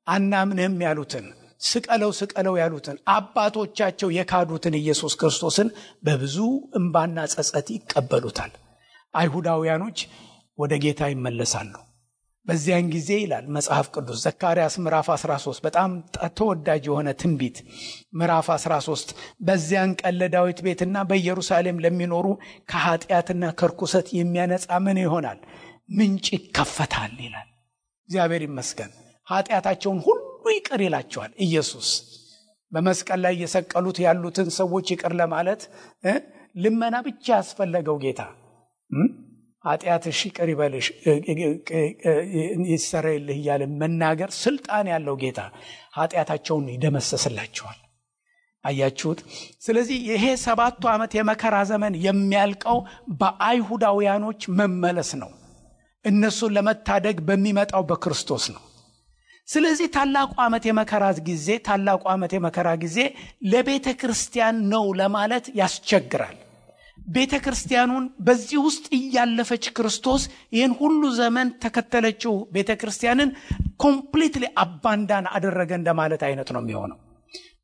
አናምንህም ያሉትን ስቀለው ያሉትን አባቶቻቸው የካዱትን ኢየሱስ ክርስቶስን በብዙ እንባና ጸጸት ይቀበሉታል። አይሁዳውያኖች ወደ ጌታ ይመለሳሉ። በዚያን ጊዜ ይላል መጽሐፍ ቅዱስ ዘካርያስ ምዕራፍ 13 በጣም ተወዳጅ የሆነ ትንቢት ምዕራፍ 13 በዚያን ቀን ለዳዊት ቤትና በኢየሩሳሌም ለሚኖሩ ከኃጢአትና ከርኩሰት የሚያነጻ ምን ይሆናል? ምንጭ ይከፈታል ይላል። እግዚአብሔር ይመስገን። ኃጢአታቸውን ሁሉ ይቅር ይላቸዋል። ኢየሱስ በመስቀል ላይ የሰቀሉት ያሉትን ሰዎች ይቅር ለማለት ልመና ብቻ ያስፈልገው ጌታ ኃጢአትሽ ይቅር ይበልሽ ይሰረይልህ እያለ መናገር ስልጣን ያለው ጌታ ኃጢአታቸውን ይደመሰስላቸዋል። አያችሁት? ስለዚህ ይሄ 7 ዓመት የመከራ ዘመን የሚያልቀው በአይሁዳውያኖች መመለስ ነው። እነሱን ለመታደግ በሚመጣው በክርስቶስ ነው። ስለዚህ ታላቁ ዓመት የመከራ ጊዜ ለቤተ ክርስቲያን ነው ለማለት ያስቸግራል። ቤተ ክርስቲያኑን በዚህ ውስጥ እያለፈች ክርስቶስ ይህን ሁሉ ዘመን ተከተለችው ቤተ ክርስቲያንን ኮምፕሊትሊ አባንዳን አደረገ እንደማለት አይነት ነው የሚሆነው።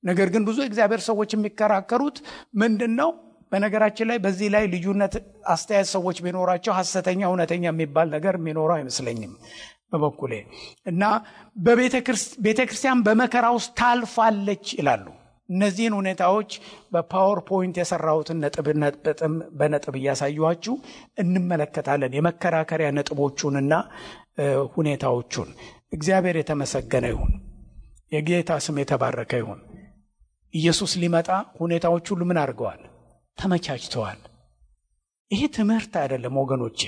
ነገር ግን ብዙ እግዚአብሔር ሰዎች የሚከራከሩት ምንድነው? በነገራችን ላይ በዚህ ላይ ልዩነት አስተያየት ሰዎች ቢኖራቸው ሐሰተኛ እውነተኛ የሚባል ነገር የሚኖረው አይመስለኝም በበኩሌ እና ቤተ ክርስቲያን በመከራ ውስጥ ታልፋለች ይላሉ። እነዚህን ሁኔታዎች በፓወርፖይንት የሰራሁትን በነጥብ እያሳዩዋችሁ እንመለከታለን። የመከራከሪያ ነጥቦቹንና ሁኔታዎቹን። እግዚአብሔር የተመሰገነ ይሁን። የጌታ ስም የተባረከ ይሁን። ኢየሱስ ሊመጣ ሁኔታዎች ሁሉ ምን አድርገዋል? ተመቻችተዋል። ይሄ ትምህርት አይደለም ወገኖቼ።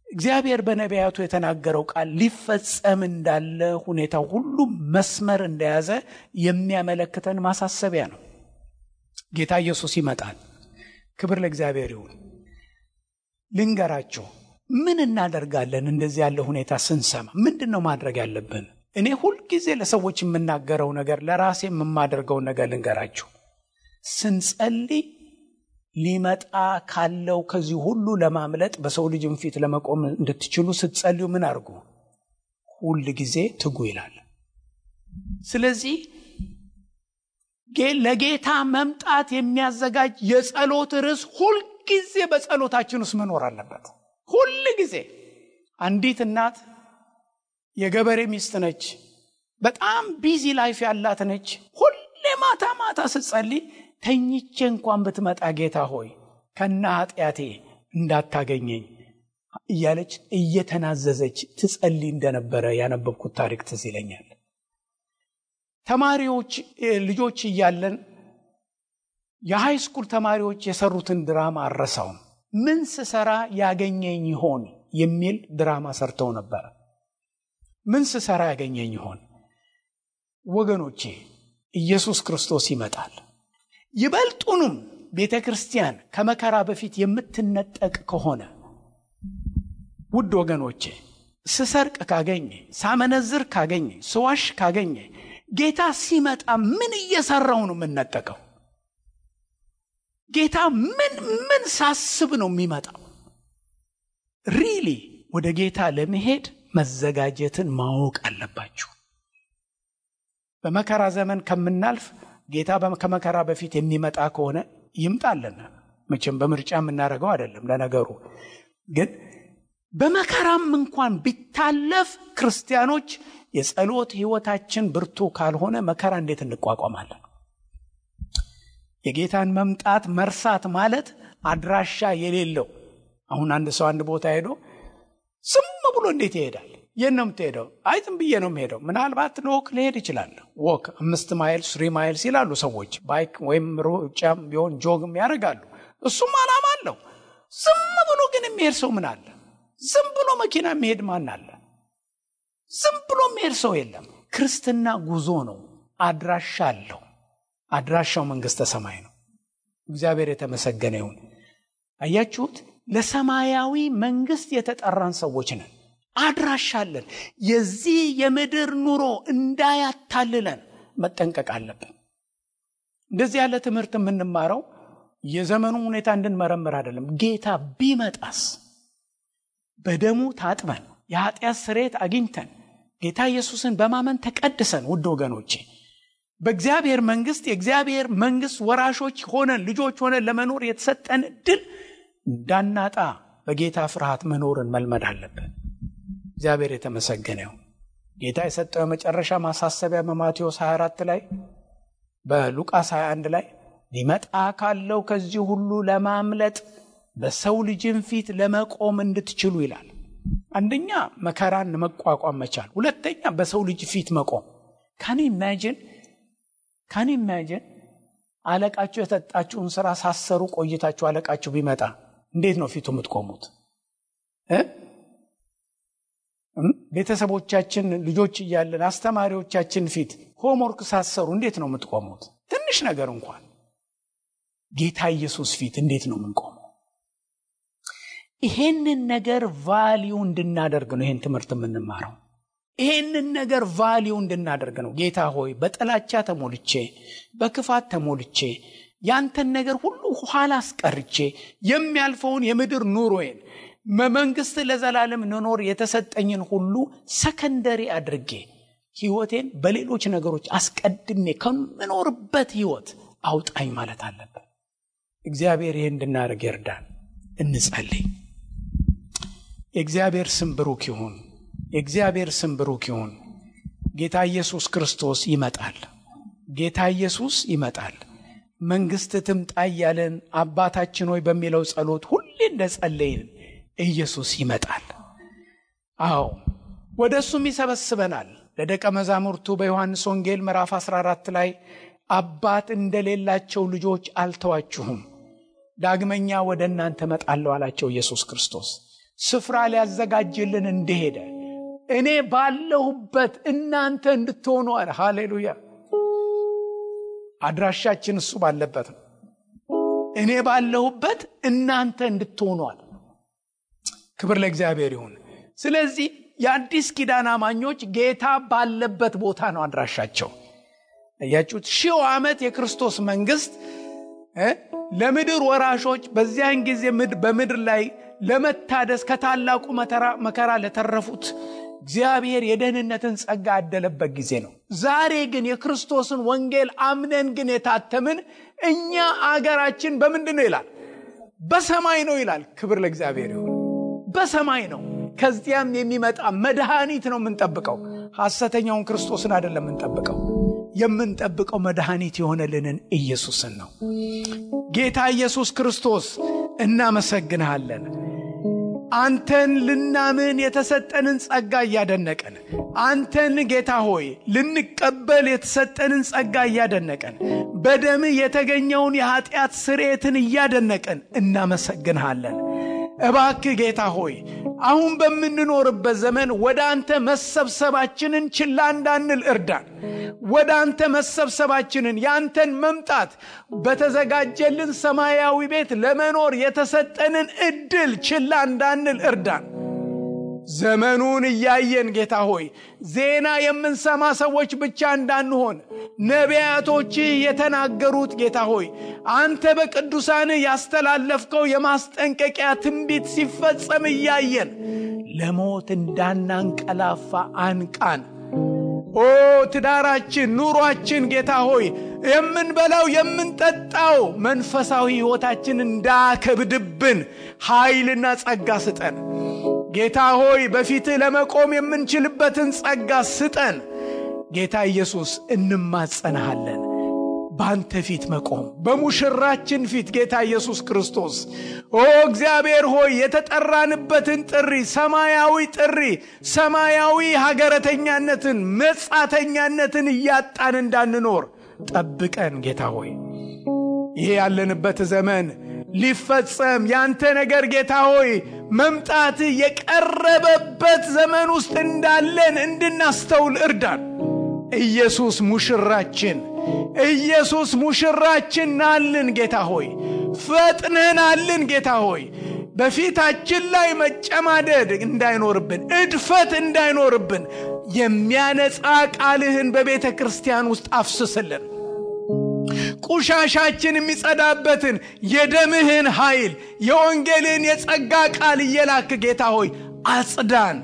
እግዚአብሔር በነቢያቱ የተናገረው ቃል ሊፈጸም እንዳለ ሁኔታው ሁሉ መስመር እንደያዘ የሚያመለክተን ማሳሰቢያ ነው። ጌታ ኢየሱስ ይመጣል። ክብር ለእግዚአብሔር ይሁን። ልንገራችሁ፣ ምን እናደርጋለን? እንደዚህ ያለ ሁኔታ ስንሰማ ምንድነው ማድረግ ያለብን? እኔ ሁልጊዜ ለሰዎች የምናገረው ነገር ለራሴ የማደርገው ነገር ልንገራችሁ። ስንጸልይ ሊመጣ ካለው ከዚህ ሁሉ ለማምለጥ በሰው ልጅም ፊት ለመቆም እንድትችሉ ስትጸልዩ ምን አድርጉ? ሁል ጊዜ ትጉ ይላል። ስለዚህ ለጌታ መምጣት የሚያዘጋጅ የጸሎት ርዕስ ሁል ጊዜ በጸሎታችን ውስጥ መኖር አለበት። ሁል ጊዜ አንዲት እናት የገበሬ ሚስት ነች፣ በጣም ቢዚ ላይፍ ያላት ነች። ሁሌ ማታ ማታ ስትጸልይ ተኝቼ እንኳን ብትመጣ ጌታ ሆይ ከና ኃጢአቴ እንዳታገኘኝ እያለች እየተናዘዘች ትጸልይ እንደነበረ ያነበብኩት ታሪክ ትዝ ይለኛል። ተማሪዎች ልጆች እያለን የሃይ ስኩል ተማሪዎች የሰሩትን ድራማ አረሳውም። ምን ስሰራ ያገኘኝ ይሆን የሚል ድራማ ሰርተው ነበር። ምን ስሰራ ያገኘኝ ይሆን? ወገኖቼ ኢየሱስ ክርስቶስ ይመጣል። ይበልጡንም ቤተ ክርስቲያን ከመከራ በፊት የምትነጠቅ ከሆነ ውድ ወገኖቼ፣ ስሰርቅ ካገኘ፣ ሳመነዝር ካገኘ፣ ስዋሽ ካገኘ ጌታ ሲመጣ ምን እየሰራው ነው የምንነጠቀው? ጌታ ምን ሳስብ ነው የሚመጣው? ሪሊ ወደ ጌታ ለመሄድ መዘጋጀትን ማወቅ አለባችሁ። በመከራ ዘመን ከምናልፍ ጌታ ከመከራ በፊት የሚመጣ ከሆነ ይምጣልን። መቼም በምርጫ የምናደርገው አይደለም። ለነገሩ ግን በመከራም እንኳን ቢታለፍ ክርስቲያኖች የጸሎት ህይወታችን ብርቱ ካልሆነ መከራ እንዴት እንቋቋማለን? የጌታን መምጣት መርሳት ማለት አድራሻ የሌለው። አሁን አንድ ሰው አንድ ቦታ ሄዶ ዝም ብሎ እንዴት ይሄዳል? የት ነው የምትሄደው? አይ ዝም ብዬ ነው የምሄደው። ምናልባት ወክ ሊሄድ ይችላል። ወክ 5 ማይል 3 ማይልስ ይላሉ ሰዎች። ባይክ ወይም ሩጫም ቢሆን ጆግም ያደርጋሉ። እሱም ዓላማ አለው። ዝም ብሎ ግን የሚሄድ ሰው ምን አለ? ዝም ብሎ መኪና የሚሄድ ማን አለ? ዝም ብሎ የሚሄድ ሰው የለም። ክርስትና ጉዞ ነው። አድራሻ አለው። አድራሻው መንግስተ ሰማይ ነው። እግዚአብሔር የተመሰገነ ይሁን። አያችሁት? ለሰማያዊ መንግስት የተጠራን ሰዎች ነን። አድራሻለን። የዚህ የምድር ኑሮ እንዳያታልለን መጠንቀቅ አለብን። እንደዚህ ያለ ትምህርት የምንማረው የዘመኑ ሁኔታ እንድንመረምር አይደለም። ጌታ ቢመጣስ በደሙ ታጥበን የኃጢአት ስርየት አግኝተን ጌታ ኢየሱስን በማመን ተቀድሰን ውድ ወገኖቼ በእግዚአብሔር መንግስት የእግዚአብሔር መንግስት ወራሾች ሆነን ልጆች ሆነን ለመኖር የተሰጠን ዕድል እንዳናጣ በጌታ ፍርሃት መኖርን መልመድ አለብን። እግዚአብሔር የተመሰገነ ይሁን። ጌታ የሰጠው መጨረሻ ማሳሰቢያ በማቴዎስ 24 ላይ በሉቃስ 21 ላይ ሊመጣ ካለው ከዚህ ሁሉ ለማምለጥ በሰው ልጅን ፊት ለመቆም እንድትችሉ ይላል። አንደኛ መከራን መቋቋም መቻል፣ ሁለተኛ በሰው ልጅ ፊት መቆም። ካን ኢማጂን አለቃችሁ የሰጣችሁን ስራ ሳሰሩ ቆይታችሁ አለቃችሁ ቢመጣ እንዴት ነው ፊቱ የምትቆሙት? ቤተሰቦቻችን ልጆች እያለን አስተማሪዎቻችን ፊት ሆምወርክ ሳሰሩ እንዴት ነው የምትቆሙት? ትንሽ ነገር እንኳን ጌታ ኢየሱስ ፊት እንዴት ነው የምንቆመው? ይሄንን ነገር ቫልዩ እንድናደርግ ነው ይሄን ትምህርት የምንማረው። ይሄንን ነገር ቫልዩ እንድናደርግ ነው። ጌታ ሆይ በጥላቻ ተሞልቼ በክፋት ተሞልቼ ያንተን ነገር ሁሉ ኋላ አስቀርቼ የሚያልፈውን የምድር ኑሮዬን መንግስት ለዘላለም ኖር የተሰጠኝን ሁሉ ሰከንደሪ አድርጌ ህይወቴን በሌሎች ነገሮች አስቀድሜ ከምኖርበት ህይወት አውጣኝ ማለት አለበት። እግዚአብሔር ይሄን እንድናደርግ ይርዳን። እንጸልይ። የእግዚአብሔር ስም ብሩክ ይሁን። የእግዚአብሔር ስም ብሩክ ይሁን። ጌታ ኢየሱስ ክርስቶስ ይመጣል። ጌታ ኢየሱስ ይመጣል። መንግስት ትምጣ እያለን አባታችን ሆይ በሚለው ጸሎት ሁሌ እንደጸለይን ኢየሱስ ይመጣል። አዎ ወደሱም ይሰበስበናል። ለደቀ መዛሙርቱ በዮሐንስ ወንጌል ምዕራፍ 14 ላይ አባት እንደሌላቸው ልጆች አልተዋችሁም፣ ዳግመኛ ወደ እናንተ መጣለሁ አላቸው ኢየሱስ ክርስቶስ። ስፍራ ሊያዘጋጅልን እንደሄደ እኔ ባለሁበት እናንተ እንድትሆኑ አለ። ሃሌሉያ! አድራሻችን እሱ ባለበት ነው። እኔ ባለሁበት እናንተ እንድትሆኑ አለ። ክብር ለእግዚአብሔር ይሁን። ስለዚህ የአዲስ ኪዳን አማኞች ጌታ ባለበት ቦታ ነው አድራሻቸው። ያያችሁት 1000 ዓመት የክርስቶስ መንግስት ለምድር ወራሾች በዚያን ጊዜ በምድር ላይ ለመታደስ ከታላቁ መከራ ለተረፉት እግዚአብሔር የደህንነትን ጸጋ ያደለበት ጊዜ ነው። ዛሬ ግን የክርስቶስን ወንጌል አምነን ግን የታተምን እኛ አገራችን በምንድን ነው ይላል? በሰማይ ነው ይላል። ክብር ለእግዚአብሔር ይሁን። በሰማይ ነው። ከዚያም የሚመጣ መድኃኒት ነው የምንጠብቀው። ሐሰተኛውን ክርስቶስን አይደለም የምንጠብቀው መድኃኒት የሆነልንን ኢየሱስን ነው። ጌታ ኢየሱስ ክርስቶስ እናመሰግንሃለን። አንተን ልናምን የተሰጠንን ጸጋ እያደነቀን፣ አንተን ጌታ ሆይ ልንቀበል የተሰጠንን ጸጋ እያደነቀን፣ በደም የተገኘውን የኃጢአት ስርየትን እያደነቀን እናመሰግንሃለን። እባክህ ጌታ ሆይ አሁን በምንኖርበት ዘመን ወደ አንተ መሰብሰባችንን ችላ እንዳንል እርዳን። ወደ አንተ መሰብሰባችንን ያንተን መምጣት በተዘጋጀልን ሰማያዊ ቤት ለመኖር የተሰጠንን እድል ችላ እንዳንል እርዳን። ዘመኑን እያየን ጌታ ሆይ ዜና የምንሰማ ሰዎች ብቻ እንዳንሆን ነቢያቶች የተናገሩት ጌታ ሆይ አንተ በቅዱሳን ያስተላለፍከው የማስጠንቀቂያ ትንቢት ሲፈጸም እያየን ለሞት እንዳናንቀላፋ አንቃን። ኦ ትዳራችን፣ ኑሯችን ጌታ ሆይ የምንበላው የምንጠጣው መንፈሳዊ ሕይወታችን እንዳከብድብን ኃይልና ጸጋ ስጠን። ጌታ ሆይ በፊትህ ለመቆም የምንችልበትን ጸጋ ስጠን። ጌታ ኢየሱስ እንማጸናሃለን። ባንተ ፊት መቆም በሙሽራችን ፊት ጌታ ኢየሱስ ክርስቶስ ኦ እግዚአብሔር ሆይ የተጠራንበትን ጥሪ፣ ሰማያዊ ሀገረተኛነትን፣ መጻተኛነትን እያጣን እንዳንኖር ጠብቀን ጌታ ሆይ። ይሄ ያለንበት ዘመን ሊፈጸም ያንተ ነገር ጌታ ሆይ መምጣት የቀረበበት ዘመን ውስጥ እንዳለን እንድናስተውል እርዳን። ኢየሱስ ሙሽራችን ናልን ጌታ ሆይ፣ ፈጥነናልን ጌታ ሆይ። በፊታችን ላይ መጨማደድ እንዳይኖርብን፣ እድፈት እንዳይኖርብን የሚያነጻ ቃልህን በቤተ ክርስቲያን ውስጥ አፍስስልን። ቁሻሻችን የሚጸዳበትን የደምህን ኃይል የወንጌልን የጸጋ ቃል እየላክ ጌታ ሆይ አጽዳን።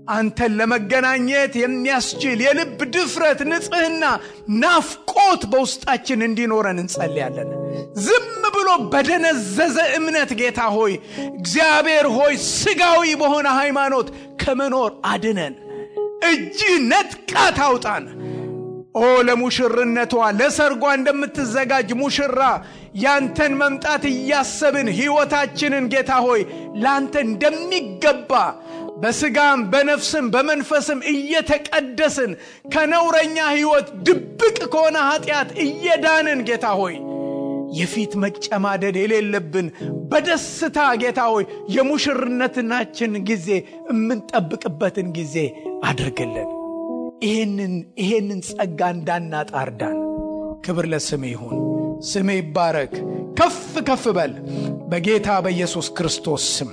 አንተን ለመገናኘት የሚያስችል የልብ ድፍረት፣ ንጽህና፣ ናፍቆት በውስጣችን እንዲኖረን እንጸልያለን። ዝም ብሎ በደነዘዘ እምነት ጌታ ሆይ እግዚአብሔር ሆይ ስጋዊ በሆነ ሃይማኖት ከመኖር አድነን። እጅ ነጥቃ ታውጣን። ኦ ለሙሽርነቷ ለሰርጓ እንደምትዘጋጅ ሙሽራ ያንተን መምጣት እያሰብን ሕይወታችንን ጌታ ሆይ ላንተ እንደሚገባ በስጋም በነፍስም በመንፈስም እየተቀደስን ከነውረኛ ሕይወት ድብቅ ከሆነ ኃጢአት እየዳንን ጌታ ሆይ የፊት መጨማደድ የሌለብን በደስታ ጌታ ሆይ የሙሽርነታችን ጊዜ የምንጠብቅበትን ጊዜ አድርግልን። ይሄንን ጸጋ እንዳናጣ እርዳን። ክብር ለስምህ ይሁን። ስምህ ይባረክ፣ ከፍ ከፍ በል በጌታ በኢየሱስ ክርስቶስ ስም።